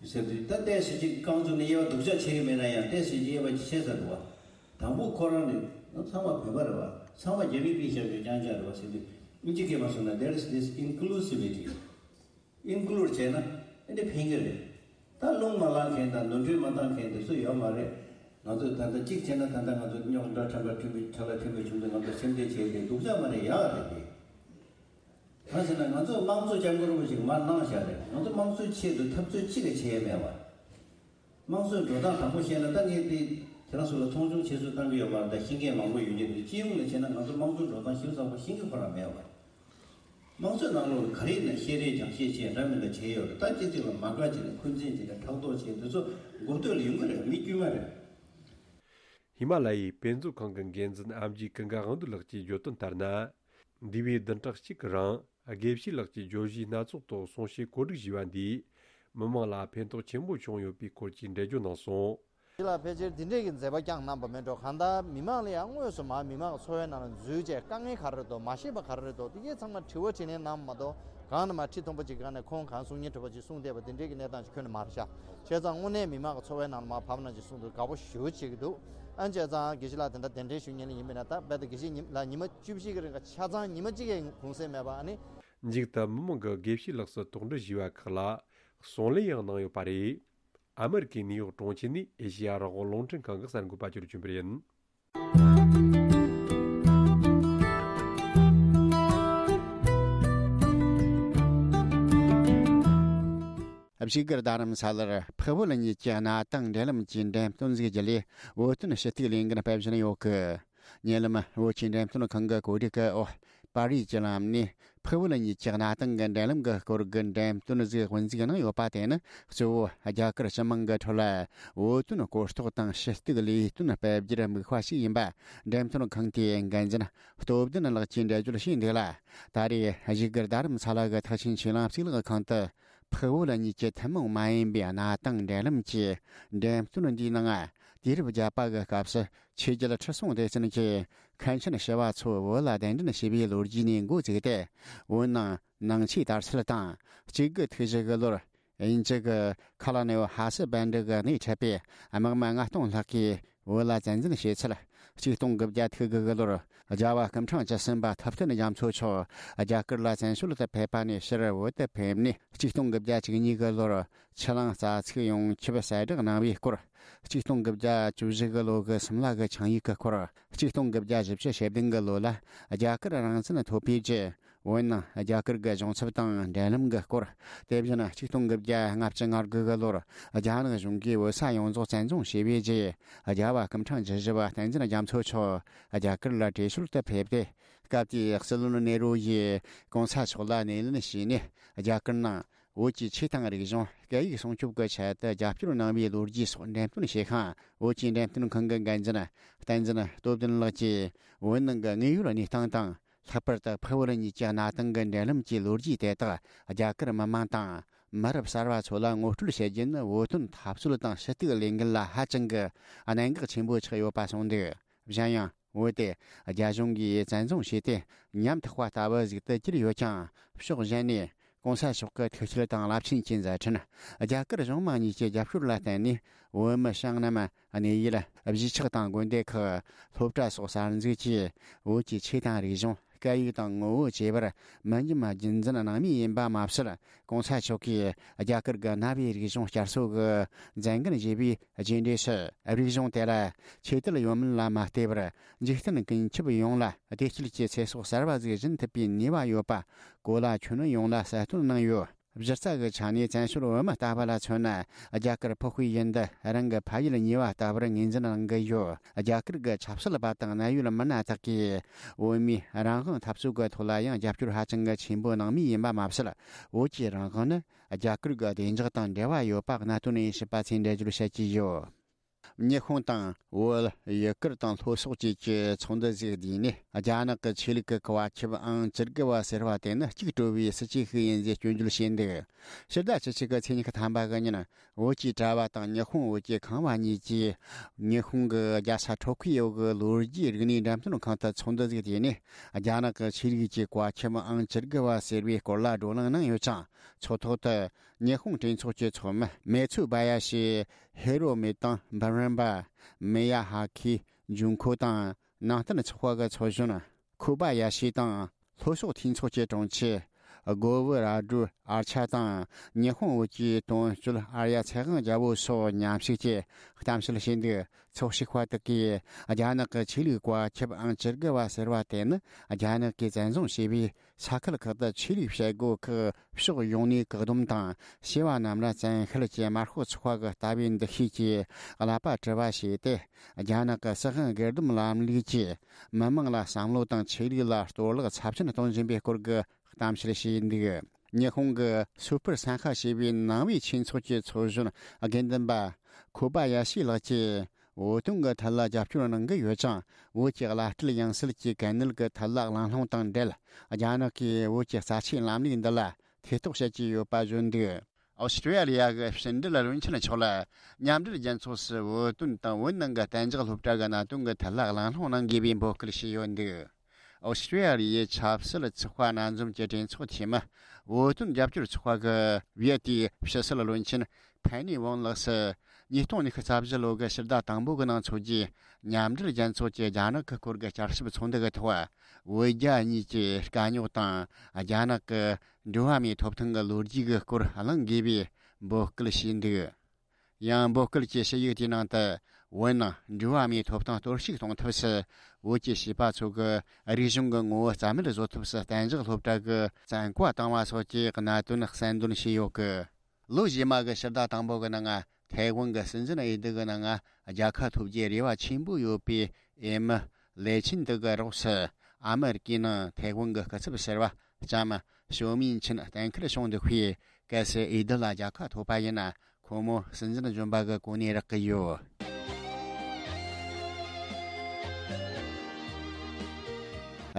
ཟེར་དུས་ད་ཏོག་ཙམ་ཅིག་རྐང་བཙུགས་ནས་དབྱེ་བ་སྡུག་ཅག་བྱེད་ཀྱི་མེད་ན་ཡང་ཏོག་ཙམ་ཅིག་དབྱེ་བ་ཅིག་ཕྱེ་ཚར་འདུག་བ། དང་པོ་ཁོ་རང་ནི་ང་ཚང་མ་བོད་པ་རེད་བ། ཚང་མ་རྒྱ་མིའི་པི་ཤ་ཡོད་རྐྱང་རྐྱང་རེད་བ་ཟེར་དུས་ཨིན་ཇི་སྐད་མ་སོང་ན། There is this inclusivity. Include་བྱས་ན་ཨ་ནི་ཕན་གྱི་རེད། ད་རླུང་མ་ལངས་མཁན་དང་ནོར་འཁྲུལ་མ་བཏང་མཁན་དེ་ཚོ་ཡོད་མ་རེད། ང་ཚོས་ད་ལྟ་གཅིག་བྱས་ན་ད་ལྟ་ང་ཚོ་རྙོག་དྲ་ཕྲན་བུ་ཕྲན་བུ་ཁྲ་ལ་ཕྲན་བུ་བྱུང་དུས་ང་ཚོ་སེམས་ཁྲལ་བྱས་ཏེ་སྡུག་ཅག་མ་རེད། ཡག་རེད་དེ། གང་ཟེར་ན་ང་ཚོ་དམངས་གཙོ་སྐྱབས་མགོན་རིན་པོ་ཆེས་མར་གནང་བཞག་རེད། ང་ཚོ་དམངས་གཙོའི་ཆེད་དུ་འཐབ་རྩོད་གཅིག་ལས་བྱས་ཡས་མེད་པ། དམངས་གཙོའི་འགྲོ་སྟངས་དང་པོ་བཤད་ན་ད་ངས་དེ་ཁྱེད་རང་ཚོ་ལ་མཐོང་ཆུང་བྱེད་ཚུལ་བཏང་གི་ཡོད་པ་རེད། ད་ཤེས་མཁན་མང་པོ་ཡོད་ཀྱི་འདུག་སྤྱི་ཡོངས་ལ་བྱས་ན་ང་ཚོ་དམངས་གཙོའི་འགྲོ་སྟངས་ཞིབ་ཚགས་པོ་ཤེས་ཀྱི་ཁོ་རང་མེད་པ་རེད། དམངས་གཙོའི་ནང་ལོགས་ལ་ག་རེ་ཡིན་ན་བཤད་རེས་སྦྱང་བཤད་བྱས་འདྲ་མི་འདྲ་བྱས་ཡོད་རེད། ད་སྤྱི་ཚོགས་ལ་མ་དགའ་བྱས་ནས་འཁོན་འཛིན་བྱས་ནས་ཕྲག་དོག་བྱས་དེ་ཚོ་མགོ་སྟོད་ལ་ཡོང་གི་རེད། མི་དཀྱུས་མ་རེད། ཧི་མ་ལ་ཡའི་དཔེ་མཛོད་ཁང་གི་འགན་འཛིན་ཨེམ་ཆི་ཀུན་དགའ་དབང་འདུས་ལགས་ཀྱིས་བརྗོད་དོན་ལྟར་ན། འདས་པའི་བདུན་ཕྲག་གཅིག་གི་རིང་དགེ་བཤེས་ལགས་ཀྱིས་བརྗོད་གཞིའི་སྣ་ཚོགས་ཐོག་གསུང་བཤད་བཀོད་སྒྲིག་བྱས་པ་འདིས་མི་མང་ལ་ཕན་ཐོགས་ཆེན་པོ་བྱུང་ཡོད་པའི་སྐོར་གྱི་འགྲེལ་བརྗོད་གནང་སོང་། འདི་ལ་ཕལ་ཆེར་འདི་འདྲས་ཀྱི་མཛད་པ་བསྐྱངས་གནང་པ་མིན་འགྲོ། གང་ལྟར་མི་མང་ལ་ཡང་དངོས་སུ་མར་མི་མང་གི་འཚོ་བའི་ནང་ལ་འཛུལ་བྱས་དཀའ་ངལ་ག་རེ་རེད་འདུག་མ་ཤེས་པ་ག་རེ་རེད་འདུག་དེ་གའི་ཚང་མ་དྲི་བ་དྲིས་ལན་གནང་མ་གཏོགས་གང་ནས་མར་ཁྲི་མཐོན་པོ་ཅིག་སྒང་ནས་ཁོང་གང་གསུང་ཉན་དྲི་བ་ཅིག་གསུང་བསྡད་པ་འདི་འདྲས་ཀྱི་གནས་སྟངས་ཅིག་ཁྱོན་ནས་མ་རེད་ཤག་བྱས་ཙང་དངོས་གནས་མི་མང་གི་འཚོ་བའི་ནང་ལ་མར་བབས་ན་ཅིག་གསུང་དུས་དགའ་པོ་ཞེ་པོ་བྱེད་ཀྱི་འདུག་ཨ་ནི་བྱས་ཙང་དགེ་བཤེས་ལགས་དེ་འདྲ་གདན་འདྲེན་ཞུ་མཁན་ལ་ཡིན་པས་ན། ད་རྦད་དེ་དགེ་བཤེས་ཉི་ལགས་ཉི་མ་བཅུ་བཞི་གི་རིང་ག་ཆ་ཚང་ཉི་མ་གཅིག་གི་གུང་སེང་མེད་པ། ཨ་ནི། མཇུག་ཏུ་མི་མང་གིས་དགེ་བཤེས་ལགས་སུ་དོགས་འདྲི་ཞུས་པ་ཁག་ལ་གསུང་ལན་ཡང་གནང་ཡོད་པ་རེད། ཨ་མེ་རི་ཀའི་ནིའུ་ཡོག་གྲོང་ཁྱེར་ནས་ཨེ་ཤེ་ཡ་རང་དབང་རླུང་འཕྲིན་ཁང་གི་གསར་འགོད་པ་ཅིག་ལ་བྱོན་པ་ཡིན། བཞུགས་སྒར་རྡ་རམ་ས་ལར་འཕགས་བོད་གཉིས་ཀྱི་གནའ་དེང་འབྲེལ་ལམ་གྱི་འགྲེམས་སྟོན་ཟིག་བརྒྱུད་ལས་བོད་དོན་ཞུ་གཏུག་ལས་འགུལ་སྤེལ་བཞིན་ཡོད་གི། ཉེ་ལམ་བོད་ཀྱི་འགྲེམས་སྟོན་ཁང་གི་གོ་སྒྲིག་གི་འོག་པར་རིས་ཀྱི་ལམ་ནས་འཕགས་བོད་གཉིས་ཀྱི་གནའ་དེང་གི་འབྲེལ་ལམ་གྱི་སྐོར་གྱི་འགྲེམས་སྟོན་ཟིག་དབུ་འཛུགས་གནང་ཡོད་པ་དེ་ནི་གཙོ་བོ་རྒྱ་གར་སྤྱི་དམངས་ཀྱི་ཁྲོད་ལ་བོད་དོན་གོ་རྟོགས་དང་ཞུ་གཏུག་ལས་དོན་སྤེལ་རྒྱུར་དམིགས་པ་ཞིག་ཡིན་པ་འགྲེམས་སྟོན་ཁང་དེའི་འགན་འཛིན་སྟོབས་ལྡན་ལགས་ཀྱིས་འགྲེལ་བརྗོད་བྱས་འདུག་ལ། ད་རེས་བཞུགས་སྒར་རྡ་རམ་ས་ལ་གི་ཐེག་ཆེན་ཆོས་གླིང་གཙུག་ལག་ཁང་དུ་འཕགས་བོད་གཉིས་ཀྱི་ཐུན་མོང་མ་ཡིན་པའི་གནའ་དེང་འབྲེལ་ལམ་གྱི་འགྲེམས་སྟོན་འདིའི་ནང་དུས་རབས་བརྒྱད་པ་གི་སྐབས་སུ་ཆོས་རྒྱལ་ཁྲི་སྲོང་ལྡེ་བཙན་གྱིས་མཁན་ཆེན་ཞི་བ་འཚོ་བོད་ལ་གདན་འདྲེན་བྱས་པའི་ལོ་རྒྱུས་ནས་འགོ་བཙུགས་ཏེ། བོད་ནང་ནང་ཆོས་དར་སྲོལ་དང་། གཅིག་དགུ་ཐིག་བཞི་གི་ལོར་དབྱིན་ཇི་གི་ཁ་ལ་ནེའོ་ཧ་སི་བན་ཌི་གི་སྣེ་ཁྲིད་པའི་དམག་མི་ལྔ་སྟོང་ལྷག་གིས་བོད་ལ་བཙན་འཛུལ་བྱས་ཚུལ། གཅིག་སྟོང་དགུ་བརྒྱ་ཐིག་དགུ་གི་ལོར་རྒྱལ་བ་སྐུ་ཕྲེང་བཅུ་གསུམ་པ་ཐུབ་བསྟན་རྒྱ་མཚོ་མཆོག་རྒྱ་གར་ལ་བཙན་བྱོལ་དུ་ཕེབས་པ་ནས་ཕྱིར་བོད་དུ་ཕེབས་ནས། གཅིག་སྟོང་དགུ་བརྒྱ་བཅུ་གཉིས་གི་ལོར་ཆུ་གླང་རྩ་ཚིག་ཡོངས་ཁྱབ་གསལ་བསྒྲགས་གནང་བའི་སྐོར། གཅིག་སྟོང་དགུ་བརྒྱ་བཅུ་བཞི་གི་ལོ་གི་སིམ་ལ་གི་ཆིངས་ཡིག་གི་སྐོར། གཅིག་སྟོང་དགུ་བརྒྱ་བཞི་བཅུ་ཞེ་བདུན་གི་ལོ་ལ་རྒྱ་གར་རང་བཙན་ཐོབ་པའི་རྗེས་བོད་ནང་རྒྱ་གར་གྱི་གཞུང་ཚབ་དང་འབྲེལ་ལམ་གྱི་སྐོར། དེ་བཞིན་གཅིག་སྟོང་དགུ་བརྒྱ་ལྔ་བཅུ་ང་དགུ་གི་ལོར་རྒྱ་ནག་གཞུང་གིས་བོད་ས་ཡོངས་རྫོགས་བཙན་བཟུང་བྱས་པའི་རྗེས། རྒྱལ་བ་སྐུ་ཕྲེང་བཅུ་བཞི་པ་བསྟན་འཛིན་རྒྱ་མཚོ་མཆོག་རྒྱ་གར་ལ་བྲོས་བྱོལ་དུ་ཕེབས་ཏེ། སྐབས་དེའི་སྲིད་བློན་ནེ་རུ་ཡིས་གོང་ས་མཆོག་ལ་སྣེ་ལེན་བྱས་ནས། རྒྱ་གར་ནང་བོད་ཀྱི་ཆོས་དང་རིག་གཞུང་སྐད་ཡིག་སྲུང་སྐྱོབ་ཀྱི་ཆེད་དུ་རྒྱབ་སྐྱོར་གནང་བའི་ལོ་རྒྱུས་སོགས་འགྲེམས་སྟོན་བྱེད་མཁན་བོད་ཀྱི་འགྲེམས་སྟོན་ཁང་གི་འགན་འཛིན་བསྟན་འཛིན་སྟོབས་ལྡན་ལགས་ཀྱིས། བོད་ནང་གི་དངོས་ཡོད་གནས་སྟངས་དང་། ལྷག་པར་དུ་འཕགས་བོད་གཉིས་ཀྱི་གནའ་དེང་གི་འབྲེལ་ལམ་གྱི་ལོ་རྒྱུས་དེ་དག་རྒྱ་གར་མི་མང་དང་མི་རབས་གསར་བ་ཚོ་ལ་ངོ་སྤྲོད་བྱེད་རྒྱུ་ནི་བོད་དོན་འཐབ་རྩོད་དང་ཞུ་གཏུག་ལས་འགུལ་ལ་ཧ་ཅང་གི་གནད་འགག་ཆེན་པོ་ཆགས་ཡོད་པ་གསུངས་འདུག་གཞན་ཡང་བོད་དེ་རྒྱ་གཞུང་གིས་བཙན་བཟུང་བྱས་ཏེ་ཉམ་ཐག་པ་ལྟ་བུ་ཟིག་ཏུ་གྱུར་ཡོད་ཀྱང་། ཕྱོགས་གཞན་ནས་གོང་ས་མཆོག་གི་ཐུགས་བསྐྱེད་དང་རླབས་ཆེན་གྱི་མཛད་འཕྲིན། རྒྱ་གར་གཞུང་མང་གཉིས་ཀྱི་རྒྱབ་སྐྱོར་ལ་བརྟེན་ནས་བོད་མི་བྱང་སྣེ་མ་གནས་ཡུལ་གཞིས་ཆགས་དང་དགོན་སྡེ་ཁག་སློབ་གྲྭ་སོགས་གསར་འཛུགས་ཀྱིས་བོད་ཀྱི་ཆོས་དང་རིག་གཞུང་སྐད་ཡིག་དང་ངོ་བོ་བཅས་པར་མི་ཉམས་རྒྱུན་འཛིན་གནང་མུས་ཡིན་པ་མ་ཟད། གོང་ས་མཆོག་གིས་རྒྱ་གར་གྱི་གནའ་བོའི་རིག་གཞུང་བསྐྱར་གསོ་གི་མཛད་འགན་བཞེས་པའི་རྗེས་འབྲས་སུ། རིག་གཞུང་དེ་ལ་ཆོས་དད་ཡོད་མིན་ལ་མ་ལྟོས་པར་འཇིག་རྟེན་ཀུན་ཁྱབ་ཡོངས་ལ་བདེ་སྐྱིད་ཀྱི་ཚེ་སྲོག་གསར་བ་ཟིག་སྦྱིན་ཐུབ་པའི་ནུས་པ་ཡོད་པ་གོ་ལ་ཁྱོན་ཡོངས་ལ་གསལ་སྟོན་གནང་ཡོད། གཞི་རྩ་གི་ཆ་ནས་བཙན་བྱོལ་བོད་མི་ལྟ་བུ་ལ་མཚོན་ན། རྒྱ་གར་འཕགས་པའི་ཡུལ་འདི་རང་གི་ཕ་ཡུལ་གཉིས་པ་ལྟ་བུར་ངོས་འཛིན་གནང་གི་ཡོད། རྒྱ་གར་གྱི་ཆབ་སྲིད་པ་དང་གནད་ཡོད་མི་སྣ་དག་གིས་བོད་མིའི་རང་དབང་འཐབ་རྩོད་ཀྱི་ཐོག་ལ་ཡང་རྒྱབ་སྐྱོར་ཧ་ཅང་གི་ཆེན་པོ་གནང་མུས་ཡིན་པ་མ་ཟད། བོད་ཀྱི་རང་དབང་ནི་རྒྱ་གར་གྱི་བདེ་འཇགས་དང་འབྲེལ་བ་ཡོད་པ་གནད་དོན་ཡིན་ཞེས་པ་ཚོས་འགྲེལ་བརྗོད་བྱེད་ཀྱི་ཡོད། ཉི་ཧོང་དང་བོད། ཡུ་གུར་དང་ལྷོ་སོག་བཅས་ཀྱི་ཚོགས་འདུ་ཟིག་བསྡུས་ནས། རྒྱ་ནག་གི་ཆོས་ལུགས་ཀྱི་བཀའ་ཁྱབ་ཨང་བཅུ་དགུ་བ་ཟེར་བ་དེ་ནི་གཅིག་གྲོལ་བའི་སྲིད་ཇུས་ཤིག་ཡིན་ཞེས་སྐྱོན་བརྗོད་བྱས་འདུག་ཕྱི་ཟླ་བཅུ་གཅིག་གི་ཚེས་ཉི་ཤུ་ཐམ་པ་གི་ཉིན། བོད་ཀྱི་གྲྭ་བ་དང་ཉི་ཧོང་བོད་ཀྱི་ཁང་བ་གཉིས་ཀྱིས། ཉི་ཧོང་གི་རྒྱལ་ས་ཊོ་ཁི་ཡོ་གི་ལོ་རྒྱུས་རིག་གནས་འགྲེམས་སྟོན་ཁང་དུ་ཚོགས་འདུ་ཟིག་བསྡུས་ནས། རྒྱ་ནག་གི་ཆོས་ལུགས་ཀྱི་བཀའ་ཁྱབ་ཨང་བཅུ་དགུ་བ་ཟེར་བའི་སྐོར་ལ་བགྲོ་གླེང་གནང་ཡོད་ཅིང་། ཚོགས་ཐོག་ཏུ། ཉི་ཧོང་གྲོས་ཚོགས་ཀྱི་ཚོགས་མི་མེ་ཚུ་བ་ཡ་ཤི། ཧེ་རོ་མེ་དང་འབུམ་རམས་པ། མེ་ཡ་ཧ་ཁི་ཇུན་ཁོ་དང་། ནང་བསྟན་ཚོགས་པ་གི་ཚོགས་གཞོན་ཁུ་པ་ཡ་ཤི་དང་། ལྷོ་ཕྱོགས་འཐུས་ཚོགས་ཀྱི་དྲུང་ཆེ་སྒོ་བུ་ར་སྒྲུ་ཨར་ཆ་དང་། ཉི་ཧོང་བོད་ཀྱི་དོན་གཅོད་ཨར་ཡ་ཚེ་དབང་རྒྱལ་པོ་སོགས་མཉམ་ཞུགས་ཀྱིས་གཏམ་བཤད་བྱས་འདུག་ཚོགས་ཞུགས་པ་དག་གིས་རྒྱ་ནག་གི་ཆོས་ལུགས་བཀའ་ཁྱབ་ཨང་བཅུ་དགུ་བ་ཟེར་བ་དེ་ནི་རྒྱ་ནག་གིས་བཙན་བཟུང་བྱས་པའི་ས་ཁུལ་ཁག་ཏུ་ཆོས་ལུགས་བྱེད་སྒོ་ཁག་ཕྱོགས་ཡོངས་ནས་བཀག་སྡོམ་དང་། བྱེས་པ་རྣམས་ལ་བཙན་ཤེད་ཀྱི་དམར་ཤོག་ཚོགས་པ་གི་ལྟ་བའི་འདུ་ཤེས་ཀྱིས་བསླབ་པ་གྲྭ་བ་བྱས་ཏེ། རྒྱ་ནག་གི་སྲིད་དབང་སྒེར་སྡོམ་ལམ་ལུགས་ཀྱིས་མི་དམངས་ལ་བསམ་བློ་དང་ཆོས་ལུགས་ལ་གཏོར་བརླག་ཚབས་ཆེན་གཏོང་བཞིན་པའི་སྐོར་གྱི་གཏམ་བཤད་བྱས་འདུག་ཉི་ཧོང་གི་སུ་པར་སན་ཧ་ཞེས་པའི་ནང་པའི་ཆོས་ཚོགས་ཀྱི་ཚོགས་གཞོན་དགེ་འདུན་པ་ཁོ་པ་ཡ་ཤི་ལགས་ཀྱིས། བོད་དོན་གྱི་ཐད་ལ་རྒྱབ་སྐྱོར་གནང་གི་ཡོད་ཅིང་། བོད་ཀྱི་བླ་སྤྲུལ་ཡང་སྲིད་ཀྱི་གལ་གནད་ཀྱི་ཐད་ལ་གླེང་སློང་དང་འབྲེལ། རྒྱ་ནག་གིས་བོད་ཀྱི་རྩ་ཆེའི་ལམ་ལུགས་འདི་ལ་ཐེ་གཏོགས་བྱེད་ཀྱི་ཡོད་པ་བརྗོད་འདུག་ཨོ་སི་ཀྲི་ཡ་ལི་ཡ་གི་ཕྱི་འབྲེལ་བློན་ཆེན་མཆོག་ལ་མཉམ་འབྲེལ་རྒྱལ་ཚོགས་སུ་བོད་དོན་དང་བོད་ནང་གི་གཏན་འཇགས་སློབ་གྲྭ་གི་གནད་དོན་གྱི་ཐད་ལ་གླེང་སློང་གནང་དགོས་པའི་འབོད་སྐུལ་བྱས་ཡོད་འདུག་ཨོ་སི་ཀྲི་ཡ་ལི་ཡའི་ཆབ་སྲིད་ཚོགས་པ་སྣ་འཛོམས་ཀྱི་གྲོས་ཚོགས་འཐུས་མི། བོད་དོན་རྒྱབ་སྐྱོར་ཚོགས་པ་གི་བྷི་ཡ་ཏིའི་ཕྱི་སྲིད་བློན་ཆེན་ཕན་ནི་ཝང་ལགས་སུ། ཉིས་སྟོང་ཉི་ཤུ་རྩ་བཞི་ལོ་གི་ཕྱི་ཟླ་དང་པོ་གི་ནང་འཚོགས་རྒྱུའི་མཉམ་འབྲེལ་རྒྱལ་ཚོགས་ཀྱི་རྒྱ་ནག་གི་སྐོར་གྱི་བསྐྱར་ཞིབ་ཚོགས་འདུ་གི་ཐོག་བོད་རྒྱ་གཉིས་ཀྱི་དཀའ་རྙོག་དང་། རྒྱ་ནག་གི་འགྲོ་བ་མིའི་ཐོབ་ཐང་གི་ལོ་རྒྱུས་ཀྱི་སྐོར་གླེང་དགོས་པའི་འབོད་སྐུལ་བྱས་འདུག་ཡང་འབོད་སྐུལ་གྱི་ཞུ་ཡིག་དེའི་ནང་དུ། བོད་ནང་འགྲོ་བ་མིའི་ཐོབ་ཐང་གཏོར་བཤིག་གཏོང་ཐབས་སུ། བོད་ཀྱི་བྱིས་པ་ཚོ་གི་རིག་གཞུང་གི་ངོ་བོ་རྩ་མེད་བཟོ་ཐབས་སུ་གཏན་འཇགས་སློབ་གྲྭ་གི་བཙན་བཀའ་བཏང་བ་སོགས་ཀྱི་གནད་དོན་གསལ་འདོན་བྱས་ཡོད་ཀི། ལོ་རྗེས་མ་གི་ཕྱི་ཟླ་དང་པོ་གི་ནང་ང་ཐའེ་ཝན་གྱི་སྲིད་འཛིན་འོས་བསྡུ་གི་ནང་ང་རྒྱལ་ཁ་ཐོབ་རྒྱུའི་རེ་བ་ཆེན་པོ་ཡོད་པའི་འོས་མི་ལེ་ཆིན་ཏི་གི་རོགས་སུ། ཨ་མེ་རི་ཀའི་ནང་ཐའེ་ཝན་གྱི་སྐུ་ཚབ་ཟུར་པ་ལྕམ་ཞོ་མིན་ཆིན་གཏན་འཁེལ་བྱུང་འདུག་པས། གལ་སྲིད་འོས་བསྡུ་ལ་རྒྱལ་ཁ་ཐོབ་པ་ཡིན་ན། ཁོ་མོ་སྲིད་འཛིན་གཞོན་པ་གི་གོ་གནས་རག་གི་ཡོད།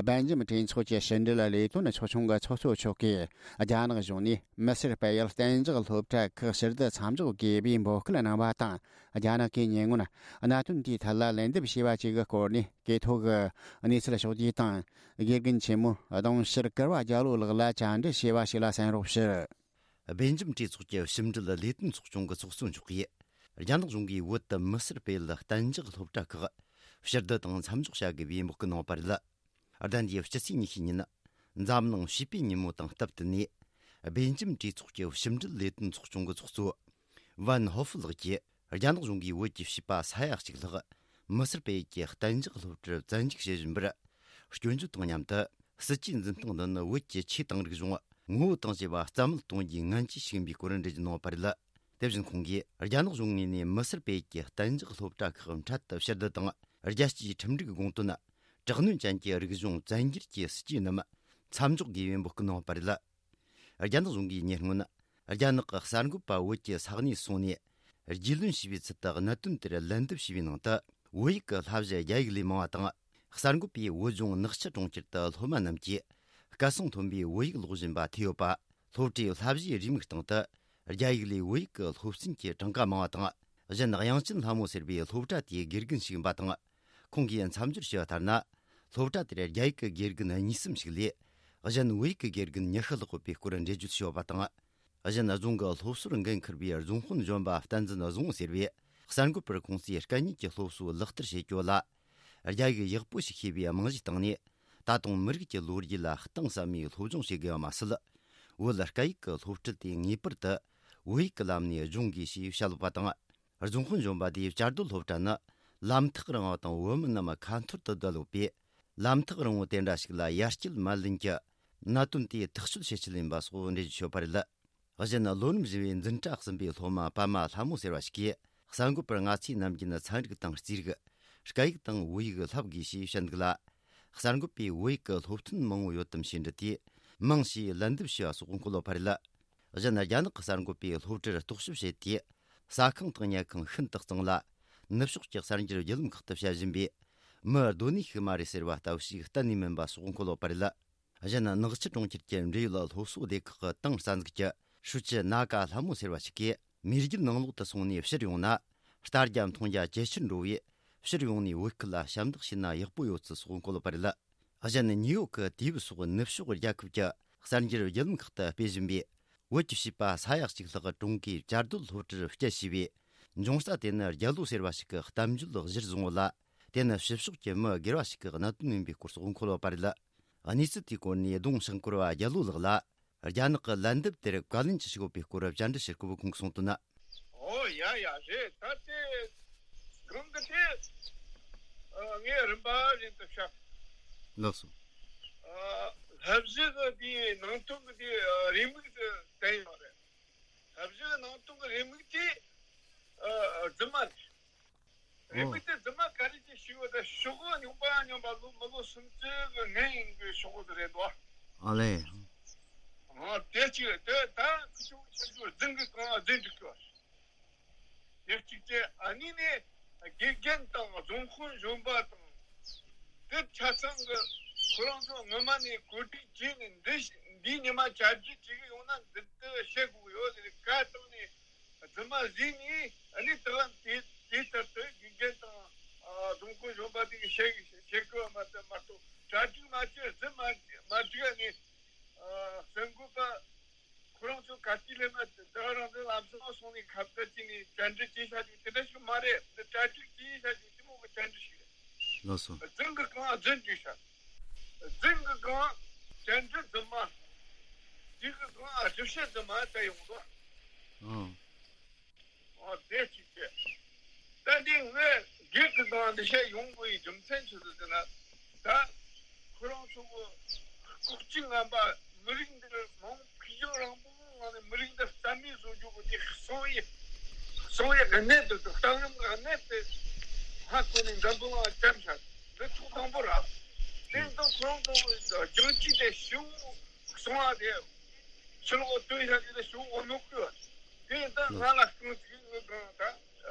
སྦེལ་ཇམ་གྲོས་ཚོགས་ཀྱི་ཕྱི་འབྲེལ་ལས་དོན་ཚོགས་ཆུང་གི་ཚོགས་གཙོ་མཆོག་གིས། རྒྱ་ནག་གཞུང་ནས་མི་སེར་སྤེལ་ཡུལ་གཏན་འཇགས་སློབ་གྲྭ་ཁག་ཕྱིར་བསྡུ་མཚམས་འཇོག་དགོས་པའི་འབོད་སྐུལ་གནང་བ་དང་། རྒྱ་ནག་གིས་ཉེ་སྔོན་གནད་དོན་དེའི་ཐད་ལ་ལན་འདེབས་བྱས་པ་བཅས་ཀྱི་སྐོར་ནས། གྲོས་ཚོགས་ཀྱི་གནས་ཚུལ་ཕྱོགས་བསྡུས་དང་། དགེ་རྒན་ཆེན་མོ་གདུང་ཤར་གུར་པ་རྒྱལ་ལོ་ལགས་ལ་བཅར་འདྲི་བྱས་པ་ཞིག་ལ་གསན་རོགས་ཞུ། སྦེལ་ཇམ་གྲོས་ཚོགས་ཀྱི་ཕྱི་འབྲེལ་ལས་དོན་ཚོགས་ཆུང་གི་ཚོགས་གཙོ་མཆོག་གིས། རྒྱ་ནག་གཞུང་གིས་བོད་དུ་མི་སེར་སྤེལ་ཡུལ་གཏན་འཇགས་སློབ་གྲྭ་ཁག་ཕྱིར་བསྡུ་དང་མཚམས་འཇོག་བྱ་དགོས་པའི་འབོད་སྐུལ་གནང་བ་རེད། ཟླ་འདིའི་སྤྱི་ཚེས་ཉི་ཤུ་ཉིན། འཛམ་གླིང་བྱིས་པའི་ཉིན་མོ་དང་སྟབས་བསྟུན་ནས། སྦེལ་ཇམ་གྲོས་ཚོགས་ཀྱི་ཕྱི་འབྲེལ་ལས་དོན་ཚོགས་ཆུང་གི་ཚོགས་གཙོ་ཝན་ཧོ་ཧྥུ་ལགས་ཀྱིས། རྒྱ་ནག་གཞུང་གིས་བོད་ཀྱི་བྱིས་པ་ས་ཡ་གཅིག་ལྷག་མི་སེར་སྤེལ་ཡུལ་གྱི་གཏན་འཇགས་སློབ་གྲྭར་བཙན་འཇུག་བྱེད་བཞིན་པར། སྐྱོན་བརྗོད་དང་མཉམ་དུ། སྲིད་ཇུས་འཛིན་སྟངས་འདི་ནི་བོད་ཀྱི་ཆོས་དང་རིག་གཞུང་ངོ་བོ་དང་བཅས་པ་རྩ་མེད་གཏོང་རྒྱུའི་ངན་ཇུས་ཤིག་ཡིན་པའི་སྐོར་འགྲེལ་བརྗོད་གནང་བ་རེད། དེ་བཞིན་ཁོང་གིས། རྒྱ་ནག་གཞུང་ངོས་ནས་མི་སེར་སྤེལ་ཡུལ་གྱི་གཏན་འཇགས་སློབ་གྲྭ་ཁག་འཕྲལ་དུ་ཕྱིར་བསྡུ་དང་། རྒྱལ་སྤྱིའི་ཁྲིམས་སྒྲིག་དགོངས་དོན། དྲག་གནོན་ཅན་གྱི་རིག་གཞུང་བཙན་འགྱུར་གྱི་སྲིད་ཇུས་རྣམས་མཚམས་འཇོག་དགོས་པའི་འབོད་སྐུལ་གནང་བ་རེད། རྒྱ་ནག་གཞུང་གིས་ཉེ་སྔོན། རྒྱ་ནག་གི་གསར་འགོད་པ་བོད་ཀྱི་ས་གནས་སོང་ནས། རྒྱུས་ལོན་བྱས་པའི་ཚུལ་དུ་གནད་དོན་དེར་ལན་འདེབས་བྱས་པའི་ནང་དུ། བོད་ཡིག་གི་བསླབ་གཞི་རྒྱ་ཡིག་ལས་མང་བ་དང་། གསར་འགོད་པས་བོད་ལྗོངས་ནག་ཆུ་གྲོང་ཁྱེར་དུ་སློབ་མ་རྣམས་ཀྱིས་སྐད་གསང་མཐོན་པོས་བོད་ཡིག་ཀློག་བཞིན་པ་ཐོས་ཡོད་པ། སློབ་གྲྭའི་བསླབ་གཞིའི་རེའུ་མིག་སྟེང་དུ། རྒྱ་ཡིག་ལས་བོད་ཡིག་གི་སློབ་ཚན་གྱི་གྲངས་ཀ་མང་བ་དང་། གཞན། དབྱངས་ཅན་ལྷ་མོ་ཟེར་བའི་སློབ་གྲྭ་དེའི་དགེ་རྒན་ཞིག་ཡིན་པ་དང་། ཁོང་གིས་མཚམས་སྦྱོར་བྱས་པ་ལྟར་ན། སློབ་གྲྭ་དེར་རྒྱ་ཡིག་གི་དགེ་རྒན་གཉིས་གསུམ་ཞིག་ལས། གཞན། བོད་ཡིག་གི་དགེ་རྒན་ཉི་ཤུ་ལྷག་ཡོད་པའི་སྐོར་འགྲེལ་བརྗོད་བྱས་ཡོད་པ་དང་། གཞན། རྫོང་གི་སློབ་གསོར་འགན་འཁུར་བའི་རྫོང་དཔོན་གཞོན་པ་བསྟན་འཛིན་བཟང་བོ་ཟེར་བས། གསར་འགོད་པར་ཁོང་ཚོས་སྐད་གཉིས་ཀྱི་སློབ་གསོ་ལག་བསྟར་བྱེད་རྒྱུ་ལ། རྒྱ་ཡིག་ཡག་པོ་ཞིག་ཤེས་པའི་རྨང་གཞིའི་སྟེང་ནས། ད་དུང་མི་རིགས་ཀྱི་ལོ་རྒྱུས་ལ་གཏིང་ཟབ་མོའི་སློབ་སྦྱོང་བྱེད་དགོས་པ་མ་ཟད། བོད་སྐད་ཡིག་གི་སློབ་ཁྲིད་དེ་ངེས་པར་དུ་བོད་ཡིག་གི་ལམ་ནས་སྦྱོང་དགོས་ཞེས་བཤད་ཡོད་པ་དང་། རྫོང་དཔོན་གཞོན་པ་དེས་བཅའ་སྡོད་སློབ་གྲྭ་ནི་ལམ་ཐག་རིང་བ་དང་བོད་མི་རྣམས་ཁ་འཐོར་དུ་བསྡད་ཡོད་པས། ལམ་ཐག་རིང་བོ་དེ་འདྲ་ཞིག་ལ་ཡར་སྐྱེལ་མ་ལེན་གྱི་གནད་དོན་དེ་ཐག་གཅོད་བྱེད་ཆེད་ཡིན་པ་སོགས་འགྲེལ་བརྗོད་བྱས་ཡོད་པ་རེད། གཞན། ལོ་རིམ་བཞི་པའི་འཛིན་གྲྭ་གསུམ་པའི་སློབ་མ་པདྨ་ལྷ་མོ་ཟེར་བ་ཞིག་གིས། གསར་འགོད་པར་ང་ཚོའི་ནམ་རྒྱུན་ཚན་རིག་དང་རྩིས་རིག། སྐད་ཡིག་དང་བོད་ཡིག་བསླབ་དགོས་ཞེས་བཤད་འདུག་ལ། གསར་འགོད་པས་བོད་ཡིག་གི་སློབ་ཐོན་མང་བོ་ཡོད་དམ་ཞེས་འདྲི་དུས། མང་ཞེས་ལན་འདེབས་བྱས་པ་སོགས་འཁོད་ཡོད་པ་རེད། གཞན། རྒྱ་ནག་གི་གསར་འགོད་པས་སློབ་གྲྭར་རྟོག་ཞིབ་བྱས་ཏེ། ཟ་ཁང་དང་ཉལ་ཁང་ཤིན་ཏུ་གཙང་ལ། ནུབ་ཕྱོགས་ཀྱི་གསར་འགྱུར་བརྒྱུད་ལམ་ཁག་ཏུ་བཤད་བཞིན་པའི། མི་སྡོད་གནས་ཤིག་མ་རེད་ཟེར་བ་ལྟ་བུ་ཞིག་གཏན་ནས་མིན་པ་སོགས་འཁོད་ཡོད་པ་རེད། གཞན། ནག་ཆུ་གྲོང་ཁྱེར་གྱི་འབྲེལ་ཡོད་སློབ་གསོ་སྡེ་ཁག་གི་ཏང་རྩ་འཛུགས་ཀྱི་ཧྲུའུ་ཅི་ན་ཀ་ལྷ་མོ་ཟེར་བ་ཞིག་གིས། མེས་རྒྱལ་ནང་ལོགས་དུ་སོང་ནས་ཕྱིར་ཡོང་ན། ལྟ་རྒྱ་མཐོང་རྒྱ་ཇེ་ཆེར་འགྲོ་བས། ཕྱིར་ཡོང་ནས་བོད་ཁུལ་ལ་ཞབས་འདེགས་ཞུས་ན་ཡག་པོ་ཡོད་ཚུལ་སོགས་འཁོད་ཡོད་པ་རེད། གཞན། ནིའུ་ཡོག་གི་དུས་བབ་སོགས་ནུབ་ཕྱོགས་རྒྱལ་ཁབ་ཀྱི་གསར་འགྱུར་བརྒྱུད་ལམ་ཁག་ཏུ་སྤེལ་བཞིན་པའི། བོད་ཀྱི་བྱིས་པ་ས་ཡ་གཅིག་ལྷག་གྲོང་གིས་བཅའ་སྡོད་སློབ་གྲྭར་བསྐྱལ་བྱས་པའི་འབྱུང་རྩ་དེ་ནི་རྒྱལ་ལོ་ཟེར་བ་ཞིག་གི་གཏམ་བརྗོད་གཞིར་བཟུང་བ་ལ། དེ་ནི་ཕྱི་ཕྱོགས་ཀྱི་མི་སྒེར་བ་ཞིག་གི་གནད་དོན་ཡིན་པའི་སྐོར་སོགས་འཁོད་ཡོད་པ་རེད། གནས་ཚུལ་དེའི་སྐོར་ནས་གདུང་ཤང་སྐོར་བ་རྒྱལ་ལོ་ལགས་ལ། རྒྱ་ནག་གི་ལན་འདེབས་དེར་བཀའ་ལན་ཅི་ཞིག་ཡོད་པའི་སྐོར་བཅར་འདྲི་བྱེད་སྐབས་ཁོང་གིས་གསུངས་དོན། ཨོ་ཡ་ཡ་རེད། ད་དེ་གང་གི་དེ་ཨ་ངས་རིམ་པ་བཞིན་དུ་བཤད། ལགས་སོ། ཨ་བསླབ་གཞི་གི་དེའི་ནང་དོན་གི་དེ་ཨ་རེའུ་མིག་དེ་བསྟན་ཡོད་རེད། བསླབ་གཞི་གི་ནང་དོན་གི་རེའུ་མིག་དེ་ཨ་རྫུན་མ་རེད། རེད། ཨོ། མི་དེ་རྫུན་མ་ག་རེ་ཅིག་ཞུས་པ་དང་ཤོག་གུ་རྙིང་པ་རྙིང་པ་ལོ་མི་ལོ་སུམ་ཅུ་གི་སྔན་ཡིན་གི་ཤོག་གུ་དེ་རེད་དོ། ཨ་ལེ། ཨ་དེ་ཅིག་དེ་ད་ཁུ་ཆུང་ཆུང་ཆུང་རྫུན་གི་གང་རྫུན་འགྲིག་གི་བ། དེ་གཅིག་དེ་ཨ་ནི་ནས་དགེ་རྒན་དང་རྫོང་དཔོན་གཞོན་པ་དང་དེ་ཆ་ཚང་གི་ཁོ་རང་ཚོ་སྔོན་མ་ནས་གོ་སྒྲིག་བྱས་ནས་འདི་འདིའི་ཉི་མ་བཅར་རྒྱུ་བྱེད་གི་ཡོང་། འདི་ལྟར་བཤད་དགོས་ཡོད་ཟེར། བཀའ་བཏང་ནས་རྫུན་མ་བཟོས་ནས། ཨ་ནི་དེ་ལ་དེ་དེ་ལྟར་དུ་དགེ་རྒན་དང་། ཨ། སྡོམ་སྐོར་གཞོན་པ་དེ་གིས་བཤད་བཤད་དགོས་པ་མ་གཏོགས། མ་གཏོགས་གྲ་སྒྲིག་མ་བྱས། རྫུན་མ་མ་བསྒྲིགས་ནས། ཨ། གསར་འགོད་པ་ཁོ་རང་ཚོ་ག་དུས་སླེབས་ན། དེ་རང་དེ་ལམ་སང་སོང་ནས་ཁ་བརྡ་བྱས་ནས་བཅར་འདྲི་བྱས་བཞག་རྒྱུ་དེ་འདྲ་ཞིག་མ་རེད། འདི་གྲ་སྒྲིག་བྱས་བཞག་རྒྱུ་དེ་མོ་གི་བཅར་འདྲི་ཞིག་རེད། ལགས་སོ། རྫུན་གྱི་སྒང་རྫུན་བསྒྲིགས་ཤག་རྫུན་གྱི་སྒང་བཅར་འདྲི་རྫུན་མ། དེ་གི་སྒང་ཨ་ཞིབ་བཤད་རྫུན་མ་བྱས་ཡོང་དོ། ཨང་། ཨོ་དེ་གཅིག་བྱས། ད་འདི་ངས་སྒེར་གྱི་སྒང་འདི་བཤད་ཡོང་དགོས་ཡི་རྒྱུ་མཚན་ཆི་ཟིག་ཟེར་ན། ད་ཁོ་རང་ཚོ་གི་ལྐོག་ཇུས་ངན་པ། མི་རིགས་འདི་མང་། ཕུགས་རྒྱང་རིང་པོའི་ངང་ནས་མི་རིགས་འདི་རྩ་མེད་བཟོ་རྒྱུ་གི་དེ་གསང་བའི་གསང་བའི་གནད་དེ་དང་གཏམ་རིམ་གྱི་གནད་དེ་ཧ་གོ་ནས་འཛམ་བུ་གླིང་ལ་བསྐྱར་བཞག་འདི་ཐོག་དང་པོ་རེད། དེ་ཡིན་དུས་ཁོ་རང་ཚོ་གི་རྒྱང་ཅིག་དེ་ཞིའུ་གསང་བ་དེ་ཕྱི་ལོགས་སྟོན་བཞག་རྒྱུ་དེ་ཞིའུ་འོ་ནོ་བསྐོལ་བ། དེ་ཡིན་དུས་ང་ལ་རྐང་ཚིག་ངོས་གང་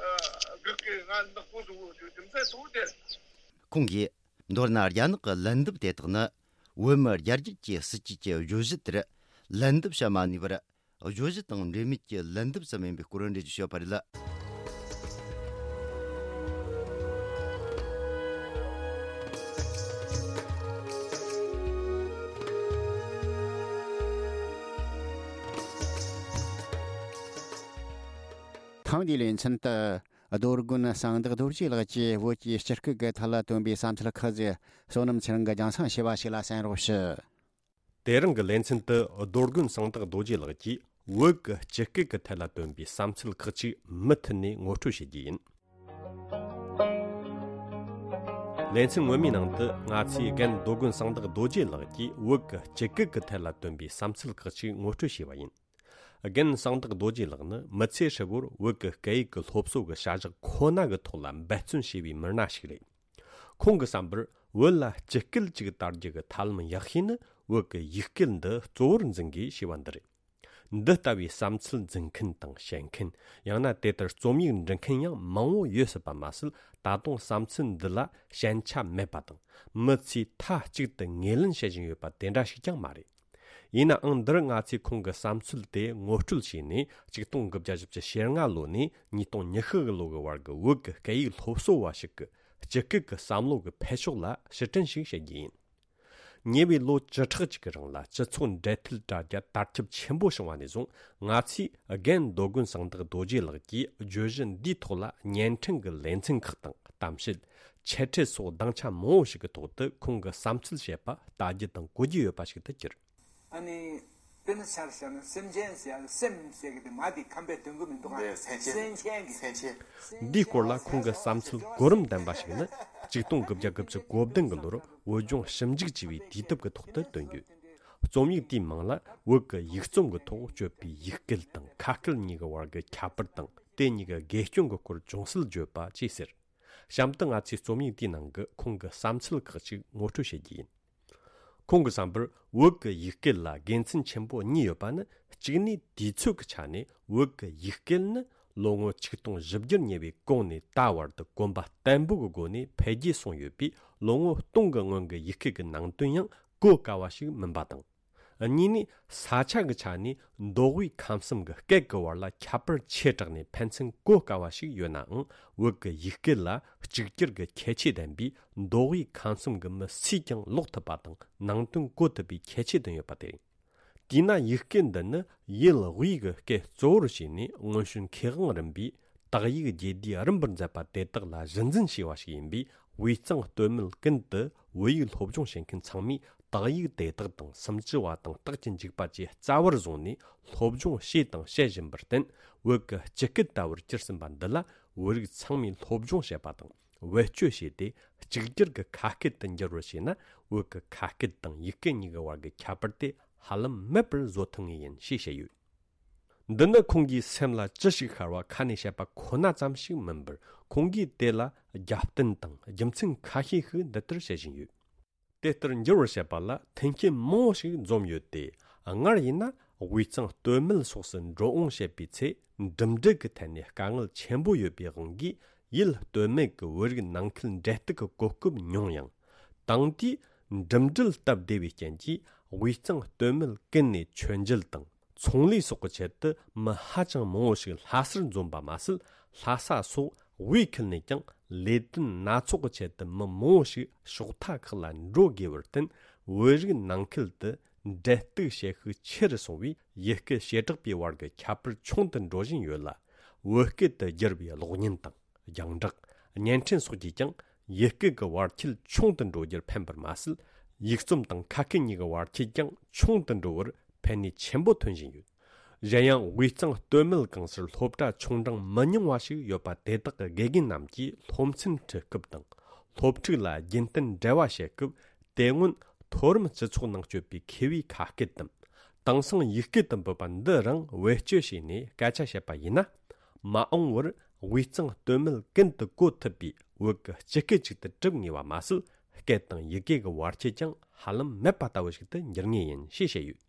ད་གི་གི་ང་ནག་པོ་བཟོ་དགོས་རྒྱུ་རྒྱུ་མཚན་གཙོ་བོ་དེ་རེད། ཁོང་གིས། མདོར་ན་རྒྱ་ནག་གི་ལན་འདེབས་དེ་དག་ནི། བོད་མི་རྒྱ་རྒྱུད་ཀྱི་སྲིད་ཇུས་ཀྱི་བརྗོད་གཞི་དེར་ལན་འདེབས་བྱ་མ་ནུས་པར། བརྗོད་གཞི་དང་འབྲེལ་མེད་ཀྱི་ལན་འདེབས་སུ་མིན་པའི་སྐོར་འགྲེལ་བརྗོད་བྱས་པ་རེད། ཐེངས་འདིའི་ལེ་ཚན་དུ། རྡོ་དགོན་གསང་བདག་རྡོ་རྗེ་ལགས་ཀྱིས་བོད་ཀྱི་སྤྱི་སྐད་ཀྱི་ཐད་ལ་བཏོན་པའི་བསམ་ཚུལ་ཁག་ཅིག་བསོད་ནམས་ཚེ་རིང་གིས་རྒྱང་སྲིང་བྱས་པ་ཞིག་ལ་གསན་རོགས་ཞུ། དེ་རིང་གི་ལེ་ཚན་དུ་རྡོ་དགོན་གསང་བདག་རྡོ་རྗེ་ལགས་ཀྱིས་བོད་ཀྱི་སྤྱི་སྐད་ཀྱི་ཐད་ལ་བཏོན་པའི་བསམ་ཚུལ་ཁག་ཅིག་མུ་མཐུད་ནས་ངོ་སྤྲོད་བྱེད་རྒྱུ་ཡིན། ལེ་ཚན་སྔོན་མའི་ནང་དུ་ང་ཚོས་རྒན་རྡོ་དགོན་གསང་བདག་རྡོ་རྗེ་ལགས་ཀྱིས་བོད་ཀྱི་སྤྱི་སྐད་ཀྱི་ཐད་ལ་བཏོན་པའི་བསམ་ཚུལ་ཁག་ཅིག་ངོ་སྤྲོད་བྱས་པ་ཡིན། རྒན་གསང་བདག་རྡོ་རྗེ་ལགས་ནི་མི་ཚེ་ཧྲིལ་བོར་བོད་ཀྱི་སྐད་ཡིག་གི་སློབ་གསོ་གི་བྱ་གཞག་ཁོ་ན་གི་ཐོག་ལ་འབད་བརྩོན་བྱས་པའི་མི་སྣ་ཞིག་རེད། ཁོང་གི་བསམ་པར་བོད་ལ་སྤྱི་སྐད་ཅིག་དར་རྒྱུ་གི་ཐབས་ལམ་ཡག་ཤོས་ནི་བོད་ཀྱི་ཡིག་སྐད་འདི་གཙོ་བོར་འཛིན་དགོས་ཞེས་པ་འདི་རེད། འདི་ལྟ་བུའི་བསམ་ཚུལ་འཛིན་མཁན་དང་བཤད་མཁན། ཡང་ན་དེ་ལྟར་རྩོམ་ཡིག་འབྲི་མཁན་ཡང་མང་བོ་ཡོད་སྲིད་པ་མ་ཟད། ད་དུང་བསམ་ཚུལ་འདི་ལ་ཞན་ཆ་མེད་པ་དང་། མི་ཚོས་མཐའ་གཅིག་ཏུ་ངོས་ལེན་བྱེད་བཞིན་ཡོད་པ་དེ་འདྲ་ཞིག་ཀྱང་མ་རེད། ཡིན་ནའང་། འདིར་ང་ཚོས་ཁོང་གི་བསམ་ཚུལ་དེ་ངོ་སྤྲོད་བྱས་ནས། ཆིག་སྟོང་དགུ་བརྒྱ་བཞི་བཅུ་ཞེ་ལྔ་ལོ་ནས་ཉིས་སྟོང་ཉི་ཤུ་གི་ལོ་གི་བར་གྱི་བོད་ཀྱི་སྐད་ཡིག་སློབ་གསོ་བ་ཞིག་གི་སྤྱི་སྐད་ཀྱི་བསམ་བློ་གི་འཕེལ་ཕྱོགས་ལ་ཕྱིར་དྲན་ཞིག་བྱེད་རྒྱུ་ཡིན། ཉེ་བའི་ལོ་བཅུ་ཕྲག་ཅིག་གི་རིང་ལ་སྤྱི་ཚོགས་འབྲེལ་མཐུད་དྲ་རྒྱ་དར་ཁྱབ་ཆེན་པོ་བྱུང་བ་ནས་བཟུང་། ང་ཚོས་རྒན་རྡོ་དགོན་གསང་བདག་རྡོ་རྗེ་ལགས་ཀྱིས་བརྗོད་གཞི་འདིའི་ཐོག་ལ་བརྙན་འཕྲིན་གྱི་ལེ་ཚན་ཁག་དང་། གཏམ་བཤད། འཆད་ཁྲིད་སོགས་སྡིངས་ཆ་མང་བོ་ཞིག་གི་ཐོག་ཏུ་ཁོང་གི་བསམ་ཚུལ་བཤད་པ་ལྟ་རྒྱུ་དང་གོ་རྒྱུ་ཡོད་པ་ཞིག་ཏུ་གྱུར། ཨ་ནི། དཔེར་ན་ཆར་བཞག་ན་སེམས་ཅན་ཟེར་ཡ་ལ་སེམས་ཟེར་གི་དེ་མ་དེ་ཁམས་པའི་དོན་གོ་མི་འདུག་ག་འདི་སེམས་ཅན། སེམས་ཅན་གི། སེམས་ཅན། འདིའི་སྐོར་ལ་ཁོང་གི་བསམ་ཚུལ་གོ་རིམ་ལྡན་པ་ཞིག་ནི། ཆིག་སྟོང་དགུ་བརྒྱ་དགུ་བཅུ་གོ་བདུན་གྱི་ལོར་བོད་ལྗོངས་ཞིབ་འཇུག་ཅེས་པའི་དུས་དེབ་ཀྱི་ཐོག་ཏུ་བཏོན་ཡོད། རྩོམ་ཡིག་དེའི་མིང་ལ། བོད་ཀྱི་ཡིག་རྩོམ་གྱི་ཐོག་སྤྱོད་པའི་ཡིག་སྐད་དང་། ཁ་སྐད་གཉིས་ཀྱི་བར་གྱི་ཁྱད་པར་དང་། དེ་གཉིས་ཀྱི་དགེ་སྐྱོན་གྱི་སྐོར་ཅུང་ཟད་བརྗོད་པ་བཅས་ཟེར། གཤམ་དུ་ང་ཚོས་རྩོམ་ཡིག་དེའི་ནང་གི་ཁོང་གི་བསམ་ཚུལ་ཁག་ཅིག་ངོ་སྤྲོད་བྱེད་རྒྱུ་ཡིན། ཁོང་གི་བསམ་པར། བོད་ཀྱི་ཡིག་སྐད་ལ་དགེ་མཚན་ཆེན་པོ་གཉིས་ཡོད་པ་ནི། གཅིག་ནས་དུས་ཚོད་ཀྱི་ཆ་ནས་བོད་ཀྱི་ཡིག་སྐད་ནི་ལོ་ངོ་ཆིག་སྟོང་བཞི་བརྒྱར་ཉེ་བའི་གོང་ནས་ད་བར་དུ་གོམ་པ་བརྟན་པོ་གི་སྒོ་ནས་འཕེལ་རྒྱས་སོང་ཡོད་པས། ལོ་ངོ་སྟོང་གི་སྔོན་གྱི་ཡིག་སྐད་ཀྱི་ནང་དོན་ཡང་གོ་དཀའ་བ་ཞིག་མིན་པ་དང་། གཉིས་ནས་ས་ཆ་གི་ཆ་ནས་མདོ་དབུས་ཁམས་གསུམ་གྱི་སྐད་ཀྱི་བར་ལ་ཁྱད་པར་ཆེ་དྲགས་ནས་ཕན་ཚུན་གོ་དཀའ་བ་ཞིག་ཡོད་ནའང་། བོད་ཀྱི་ཡིག་སྐད་ལ་གཅིག་གྱུར་གྱི་ཁྱད་ཆོས་ལྡན་པས། མདོ་དབུས་ཁམས་གསུམ་གྱི་མི་སུས་ཀྱང་ཀློག་ཐུབ་པ་དང་། ནང་དོན་གོ་ཐུབ་པའི་ཁྱད་ཆོས་ལྡན་ཡོད་པ་དེ་རེད། དེས་ན་ཡིག་སྐད་འདི་ནི་ཡུལ་དབུས་ཀྱི་སྐད་གཙོ་བོར་བྱས་ནས་སྔོན་བྱོན་མཁས་དབང་རིམ་པས་དག་ཡིག་རྒྱས་བསྡུས་རིམ་པར་མཛད་པ་དེ་དག་ལ་གཞི་འཛིན་བྱས་པ་ཞིག་ཡིན་པས། དབུས་གཙང་སྟོད་སྨད་ཀུན་ཏུ་བོད་ཡིག་སློབ་སྦྱོང་བྱེད་མཁན་ཚང་མས་དག་ཡིག་དེ་དག་དང་། སུམ་ཅུ་པ་དང་རྟགས་ཀྱི་འཇུག་པ་བཅས་རྩ་བར་བཟུང་ནས་སློབ་སྦྱོང་བྱས་དང་བྱེད་བཞིན་པར་བརྟེན། བོད་ཀྱི་སྤྱི་སྐད་ལྟ་བུར་གྱུར་ཟིན་པ་འདི་ལ་བོད་རིགས་ཚང་མས་སློབ་སྦྱོང་བྱེད་པ་དང་། བེད་སྤྱོད་བྱས་ཏེ་གཅིག་གྱུར་གྱི་ཁ་སྐད་དུ་འགྱུར་བར་བྱས་ན། བོད་ཀྱི་ཁ་སྐད་དང་ཡིག་སྐད་གཉིས་ཀྱི་བར་གྱི་ཁྱད་པར་དེ་ཧ་ལམ་མེད་པར་བཟོ་ཐུབ་ངེས་ཡིན་ཞེས་བཤད་ཡོད། འདི་ནི་ཁོང་གིས་སེམས་ལ་ཅི་ཞིག་ཤར་བ་ཁ་ནས་བཤད་པ་ཁོ་ན་ཙམ་ཞིག་མིན་པར། ཁོང་གིས་དེ་ལ་རྒྱབ་རྟེན་དང་རྒྱུ་མཚན་ཁ་ཤས་ཤིག་འདི་ལྟར་བཤད་བཞིན་ཡོད། དེ་ལྟར་འགྱུར་བར་བྱེད་པ་ལ་མཐུན་རྐྱེན་མང་བོ་ཞིག་འཛོམས་ཡོད་དེ། སྔར་ཡིན་ན་དབུས་གཙང་སྟོད་སྨད་སོགས་སུ་འགྲོ་འོང་བྱེད་པའི་ཚེ། འགྲིམ་འགྲུལ་གྱི་ཐད་ནས་དཀའ་ངལ་ཆེན་པོ་ཡོད་པའི་དབང་གིས། ཡུལ་སྟོད་སྨད་ཀྱི་བོད་རིགས་ནང་ཁུལ་འབྲེལ་གཏུག་གི་གོ་སྐབས་ཉུང་ཡང་། དེང་དུས་འགྲིམ་འགྲུལ་སྟབས་བདེ་བའི་རྐྱེན་གྱིས། དབུས་གཙང་སྟོད་སྨད་ཀུན་ནས་མཆོད་མཇལ་དང་། ཚོང་ལས་སོགས་ཀྱི་ཆེད་དུ་མི་ཧ་ཅང་མང་བོ་ཞིག་ལྷ་སར་འཛོམས་པ་མ་ཟད། ལྷ་ས་སོགས་དབུས་ཁུལ་ནས་ཀྱང་ལས་དོན་སྣ་ཚོགས་ཀྱི་ཆེད་དུ་མི་མང་བོ་ཞིག་ཕྱོགས་མཐའ་ཁག་ལ་འགྲོ་དགོས་པར་བརྟེན། བོད་རིགས་ནང་ཁུལ་དུ་འབྲེལ་གཏུག་བྱེད་ཤུགས་ཆེ་རུ་སོང་བས། ཡུལ་སྐད་བྱེ་བྲག་པའི་བར་གྱི་ཁྱད་པར་ཆུང་དུ་འགྲོ་བཞིན་ཡོད་ལ། བོད་སྐད་དུ་བསྒྱུར་བའི་གློག་བརྙན་དང་། རྒྱང་བསྒྲགས། བརྙན་འཕྲིན་སོགས་ཀྱིས་ཀྱང་ཡུལ་སྐད་ཀྱི་བར་ཁྱད་ཆུང་དུ་འགྲོ་རྒྱུར་ཕན་པར་མ་ཟད། ཡིག་རྩོམ་དང་ཁ་སྐད་གཉིས་ཀྱི་བར་ཁྱད་ཀྱང་ཆུང་དུ་འགྲོ་བར་ཕན་ནུས་ཆེན་པོ་ཐོན་བཞིན་ཡོད། གཞན་ཡང་དབུས་གཙང་སྟོད་སྨད་གང་སར་སློབ་གྲྭ་ཆུང་འབྲིང་མི་ཉུང་བ་ཞིག་ཡོད་པ། དེ་དག་གི་དགེ་རྒན་རྣམས་ཀྱིས་སློབ་ཚན་ཁྲིད་སྐབས་དང་། སློབ་ཕྲུག་ལ་རྒྱུན་གཏན་འབྲེལ་བ་བྱེད་སྐབས། དེ་སྔོན་མཐོ་རིམ་སྤྱི་ཚོགས་ནང་སྤྱོད་པའི་མཁས་པའི་ཁ་སྐད་དམ། དེང་སང་ཡིག་སྐད་དུ་འབོད་པ་འདི་རང་བེད་སྤྱོད་བྱས་ནས་སྐད་ཆ་བཤད་པ་ཡིན་ན། མ་འོངས་པར་དབུས་གཙང་སྟོད་སྨད་ཀུན་ཏུ་གོ་ཐུབ་པའི་བོད་ཀྱི་སྤྱི་སྐད་ཅིག་ཏུ་གྲུབ་ངེས་པ་མ་ཟད། སྐད་དང་ཡི་གེ་གི་བར་ཁྱད་ཀྱང་ཧ་ལམ་མེད་པ་ལྟ་བུ་ཞིག་ཏུ་འགྱུར་ངེས་ཡིན་ཞེས་བཤད་ཡོད།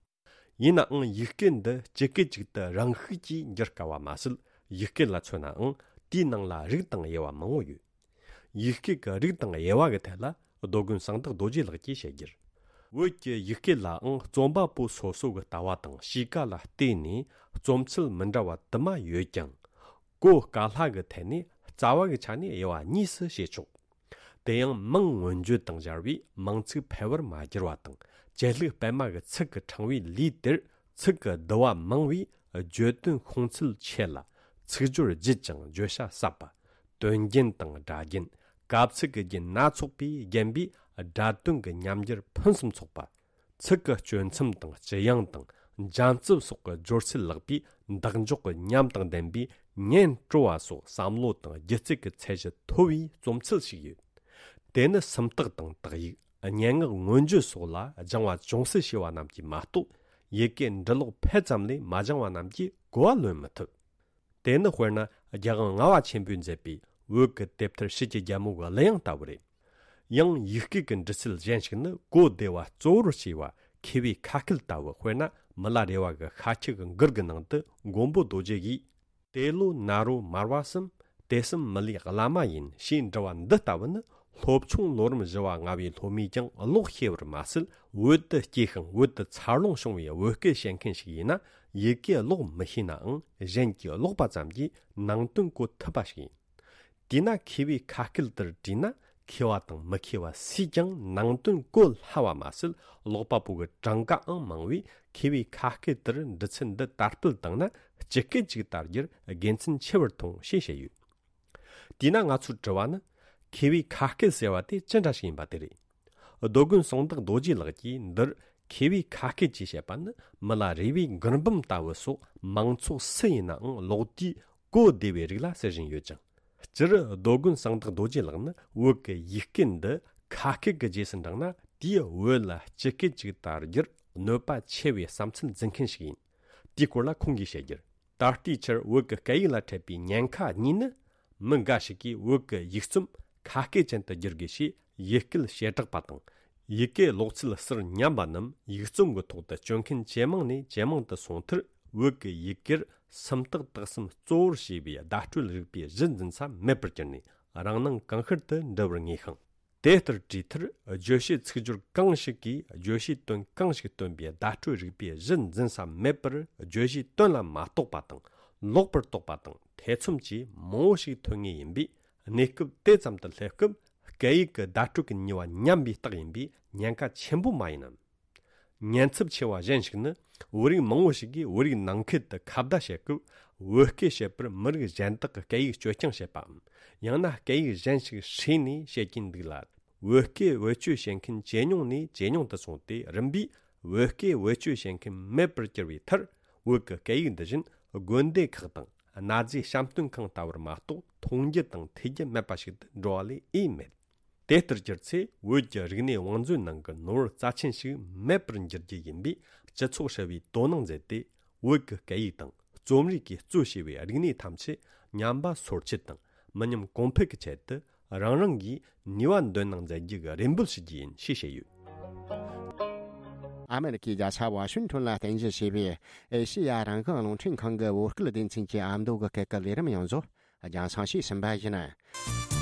ཡིན་ནའང་ཡིག་སྐད་འདི་སྤྱི་སྐད་ཅིག་ཏུ་རང་ཤུགས་ཀྱིས་འགྱུར་དཀའ་བ་མ་ཟད། ཡིག་སྐད་ལ་མཚོན་ནའང་དེའི་ནང་ལ་རིགས་དང་དབྱེ་བ་མང་བོ་ཡོད། ཡིག་སྐད་ཀྱི་རིགས་དང་དབྱེ་བ་གི་ཐད་ལ་རྡོ་དགོན་གསང་བདག་རྡོ་རྗེ་ལགས་ཀྱིས་བཤད་རྒྱུར། བོད་ཀྱི་ཡིག་སྐད་ལའང་རྩོམ་པ་པོ་སོ་སོ་གི་ལྟ་བ་དང་གཤིས་ཀ་ལ་བལྟས་ནས་རྩོམ་ཚུལ་མི་འདྲ་བ་དུ་མ་ཡོད་ཀྱང་། གོ་དཀའ་སླ་གི་ཐད་ནས་རྩ་བ་གི་ཆ་ནས་དབྱེ་བ་གཉིས་སུ་ཕྱེ་ཆོག། དེ་ཡང་མིང་མངོན་བརྗོད་དང་སྦྱར་བས་མིང་ཚིག་འཕེལ་བར་མ་བསྒྱུར་བ་དང་། བཅད་ལྷུག་སྤེལ་མ་གི་ཚིག་གི་ཕྲེང་བའི་ལུས་དེར་ཚིག་གི་བསྡུ་བ་མང་བས་བརྗོད་དོན་ཤོང་ཚད་ཆེ་ལ། ཚིག་སྦྱོར་ལྗིད་ཅིང་བརྗོད་བྱ་ཟབ་པ། དོན་རྒྱན་དང་སྒྲ་རྒྱན། གབ་ཚིག་གི་རྒྱན་སྣ་ཚོགས་པས་བརྒྱན་པས་སྒྲ་དོན་གྱི་ཉམས་འགྱུར་ཕུན་སུམ་ཚོགས་པ། ཚིག་གི་གཅོད་མཚམས་དང་ལྕི་ཡང་དང་འཇམ་རྩུབ་སོགས་ཀྱི་སྦྱོར་ཚུལ་ལེགས་པས་འདེགས་འཇོག་གི་ཉམས་དང་ལྡན་པས་ཉན་སྤྲོ་བ་སོགས་བསམ་བློ་དང་སྒྱུ་རྩལ་གྱི་ཚད་གཞི་མཐོ་བའི་རྩོམ་ཚུལ་ཞིག་ཡོད། དེ་ནི་སུམ་རྟགས་དང་དག་ཡིག་སྙན་ངག་མངོན་བརྗོད་སོགས་ལ་སྦྱང་བ་ཅུང་ཟད་བྱས་པ་རྣམས་ཀྱིས་མ་གཏོགས། ཡི་གེ་འབྲི་ཀློག་ཕལ་ཙམ་ལས་མ་སྦྱང་བ་རྣམས་ཀྱིས་གོ་བ་ལོན་མི་ཐུབ། དེ་ནི་དཔེར་ན་རྒྱལ་དབང་ལྔ་པ་ཆེན་པོས་མཛད་པའི་བོད་ཀྱི་དེབ་ཐེར་ཕྱི་གྱི་རྒྱལ་མོ་གི་གླུ་དབྱངས་ལྟ་བུ་རེད། ཡང་ཡིག་སྐད་ཀྱི་འབྲི་ཚུལ་གཞན་ཞིག་ནི་གོ་བདེ་བ་གཙོ་བོར་བྱས་པ་མཁས་པའི་ཁ་སྐད་ལྟ་བུ། དཔེར་ན་མི་ལ་རས་པ་གི་ཤཱཀྱ་གི་མགུར་གྱི་ནང་དུ་མགོན་པོ་རྡོ་རྗེ་ཡིས། དེ་ལོ་ན་རོ་མར་པ་གསུམ། དེ་གསུམ་མི་ལའི་བླ་མ་ཡིན་ཞེས་འབྲི་བ་འདི་ལྟ་བུ་ནི། སློབ་ཆུང་ལོ་རིམ་བཞི་བ་ལྔ་བའི་སློབ་མས་ཀྱང་ཀློག་ཤེས་པར་མ་ཟད། བོད་དུ་སྐྱེས་ཤིང་བོད་དུ་འཚར་ལོངས་བྱུང་བའི་བོད་སྐད་བཤད་མཁན་ཞིག་ཡིན་ན། ཡི་གེ་ཀློག་མི་ཤེས་ནའང་གཞན་གྱིས་ཀློག་པ་ཙམ་གྱིས་ནང་དོན་གོ་ཐུབ་པ་ཞིག་ཡིན། དེས་ན་མཁས་པའི་ཁ་སྐད་དེར་བྲིས་ན། མཁས་པ་དང་མི་མཁས་པ་སུས་ཀྱང་ནང་དོན་གོ་སླ་བ་མ་ཟད། ཀློག་པ་པོ་གི་གྲངས་ཀའང་མང་བས། མཁས་པའི་ཁ་སྐད་དེར་འབྲི་ཚུལ་འདི་དར་སྤེལ་བཏང་ན་སྤྱི་སྐད་ཅིག་དར་རྒྱུར་དགེ་མཚན་ཆེ་བར་མཐོང་ཞེས་བཤད་ཡོད། དེས་ན་ང་ཚོའི་དྲི་བ་ནི། མཁས་པའི་ཁ་སྐད་ཟེར་བ་དེ་ཅི་འདྲ་ཞིག་ཡིན་པ་དེ་རེད། རྡོ་དགོན་གསང་བདག་རྡོ་རྗེ་ལགས་ཀྱིས་འདིར་མཁས་པའི་ཁ་སྐད་ཅེས་བཤད་པ་ནི། མི་ལ་རས་པའི་མགུར་འབུམ་ལྟ་བུ་སོགས་མང་ཚོགས་སུ་ཡིན་ནའང་ཀློག་དུས་གོ་བདེ་བའི་རིགས་ལ་ཟེར་བཞིན་ཡོད་ཅིང་། སྤྱིར་རྡོ་དགོན་གསང་བདག་རྡོ་རྗེ་ལགས་ནི་བོད་ཀྱི་ཡིག་སྐད་འདི་ཁ་སྐད་ཀྱི་རྗེས་སུ་འབྲངས་ན། དེའི་བོད་ལ་སྤྱི་སྐད་ཅིག་དར་རྒྱུར་གནོད་པ་ཆེ་བའི་བསམ་ཚུལ་འཛིན་མཁན་ཞིག་ཡིན། དེའི་སྐོར་ལ་ཁོང་གིས་བཤད་རྒྱུར། ད་ལྟའི་ཆར་བོད་ཀྱི་སྐད་ཡིག་ལ་འཕྲད་པའི་ཉེན་ཁ་གཉིས་ནི། མི་འགའ་ཞིག་གིས་བོད་ཀྱི་ཡིག་རྩོམ་ཁ་སྐད་ཅན་དུ་བསྒྱུར་དགོས་ཞེས་ཡིག་སྐད་བྱེ་བྲག་པ་དང་། ཡི་གེ་ཀློག་ཚུལ་ཟུར་ཉམས་པ་རྣམས་ཡིག་རྩོམ་གྱི་ཐོག་ཏུ་སྤྱོད་མཁན་ཇེ་མང་ནས་ཇེ་མང་དུ་སོང་མཐར། བོད་ཀྱི་ཡི་གེར་སུམ་རྟགས་དག་གསུམ་གཙོ་བོར་བྱས་པའི་བརྡ་སྤྲོད་རིག་པའི་གཞི་འཛིན་ས་མེད་པར་གྱུར་ནས། རང་སྣང་གང་ཤར་དུ་འགྲོ་བར་ངེས་ཤིང་། དེ་ལྟར་བྲིས་མཐར། བརྗོད་བྱའི་ཚིག་སྦྱོར་གང་ཞིག་གིས་བརྗོད་བྱའི་དོན་གང་ཞིག་སྟོན་པའི་བརྡ་སྤྲོད་རིག་པའི་གཞི་འཛིན་ས་མེད་པར། བརྗོད་བྱའི་དོན་ལ་མ་རྟོགས་པ་དང་། ལོག་པར་རྟོག་པ་དང་ཐེ་ཚོམ་བཅས་མང་བོ་ཞིག་ཐོན་ངེས་ཡིན་པས། གནས་སྐབས་དེ་ཙམ་དུ་སླེབས་སྐབས། སྐད་ཡིག་གི་བརྡ་སྤྲོད་ཀྱི་ནུས་པ་ཉམས་པའི་རྟགས་ཡིན་པས་ཉེན་ཁ་ཆེན་པོ་མ་ཡིན་ནམ། ཉེན་ཚབས་ཆེ་བ་གཞན་ཞིག་ནི། བོད་རིགས་མང་བོ་ཞིག་གིས་བོད་རིགས་ནང་ཁུལ་དུ་ཁ་བརྡ་བྱེད་སྐབས། བོད་སྐད་བཤད་པར་མི་རིགས་གཞན་དག་གི་སྐད་ཡིག་སྤྱོད་རྐྱང་བྱེད་པའམ། ཡང་ན་སྐད་ཡིག་གཞན་ཞིག་ཧྲིལ་ནས་བཤད་ཀྱིན་འདུག་ལ། བོད་སྐད་བེད་སྤྱོད་བྱེད་མཁན་ཇེ་ཉུང་ནས་ཇེ་ཉུང་དུ་སོང་སྟེ། རིམ་པས་བོད་སྐད་བེད་སྤྱོད་བྱེད་མཁན་མེད་པར་གྱུར་བའི་མཐར། བོད་ཀྱི་སྐད་ཡིག་འདི་བཞིན་དགོན་སྡེ་ཁག་དང་གནའ་རྫས་བཤམས་སྟོན་ཁང་ལྟ་བུར་མ་གཏོགས། མཐོང་རྒྱུ་དང་ཐོས་རྒྱུ་མེད་པ་ཞིག་ཏུ་འགྲོ་བ་ལས་ཨེ་མེད། དེ་ལྟར་གྱུར་ཚེ། བོད་ཀྱི་རིག་གནས་བང་མཛོད་ནང་གི་ནོར་བུ་རྩ་ཆེན་ཞིག་མེད་པར་འགྱུར་རྒྱུ་ཡིན་པས། སྤྱི་ཚོགས་ཧྲིལ་བོས་དོ་སྣང་མཛད་དེ། བོད་ཀྱི་སྐད་ཡིག་དང་རྩོམ་རིག་གིས་གཙོས་བྱས་པའི་རིག་གནས་ཐམས་ཅད་ཉམས་པ་སོར་ཆུད་དང་མི་ཉམས་གོང་འཕེལ་གྱི་ཆེད་དུ། རང་རང་གིས་ནུས་པ་འདོན་གནང་མཛད་རྒྱུ་གི་རེ་འབོད་ཞུ་རྒྱུ་ཡིན་ཞེས་བཤད་ཡོད། ཨ་མེ་རི་ཁའི་རྒྱལ་ས་ཝ་ཤིང་ཊོན་ལ་རྟེན་གཞི་བྱས་པའི་ཨེ་ཤེ་ཡ་རང་དབང་རླུང་འཕྲིན་ཁང་གི་བོད་སྐད་སྡེ་ཚན་གྱི་ཨ་མདོ་གི་སྐད་ཀྱི་ལས་རིམ་ཡོངས་རྫོགས་རྒྱང་སྲིང་ཞུས་ཟིན་པ་ཡིན།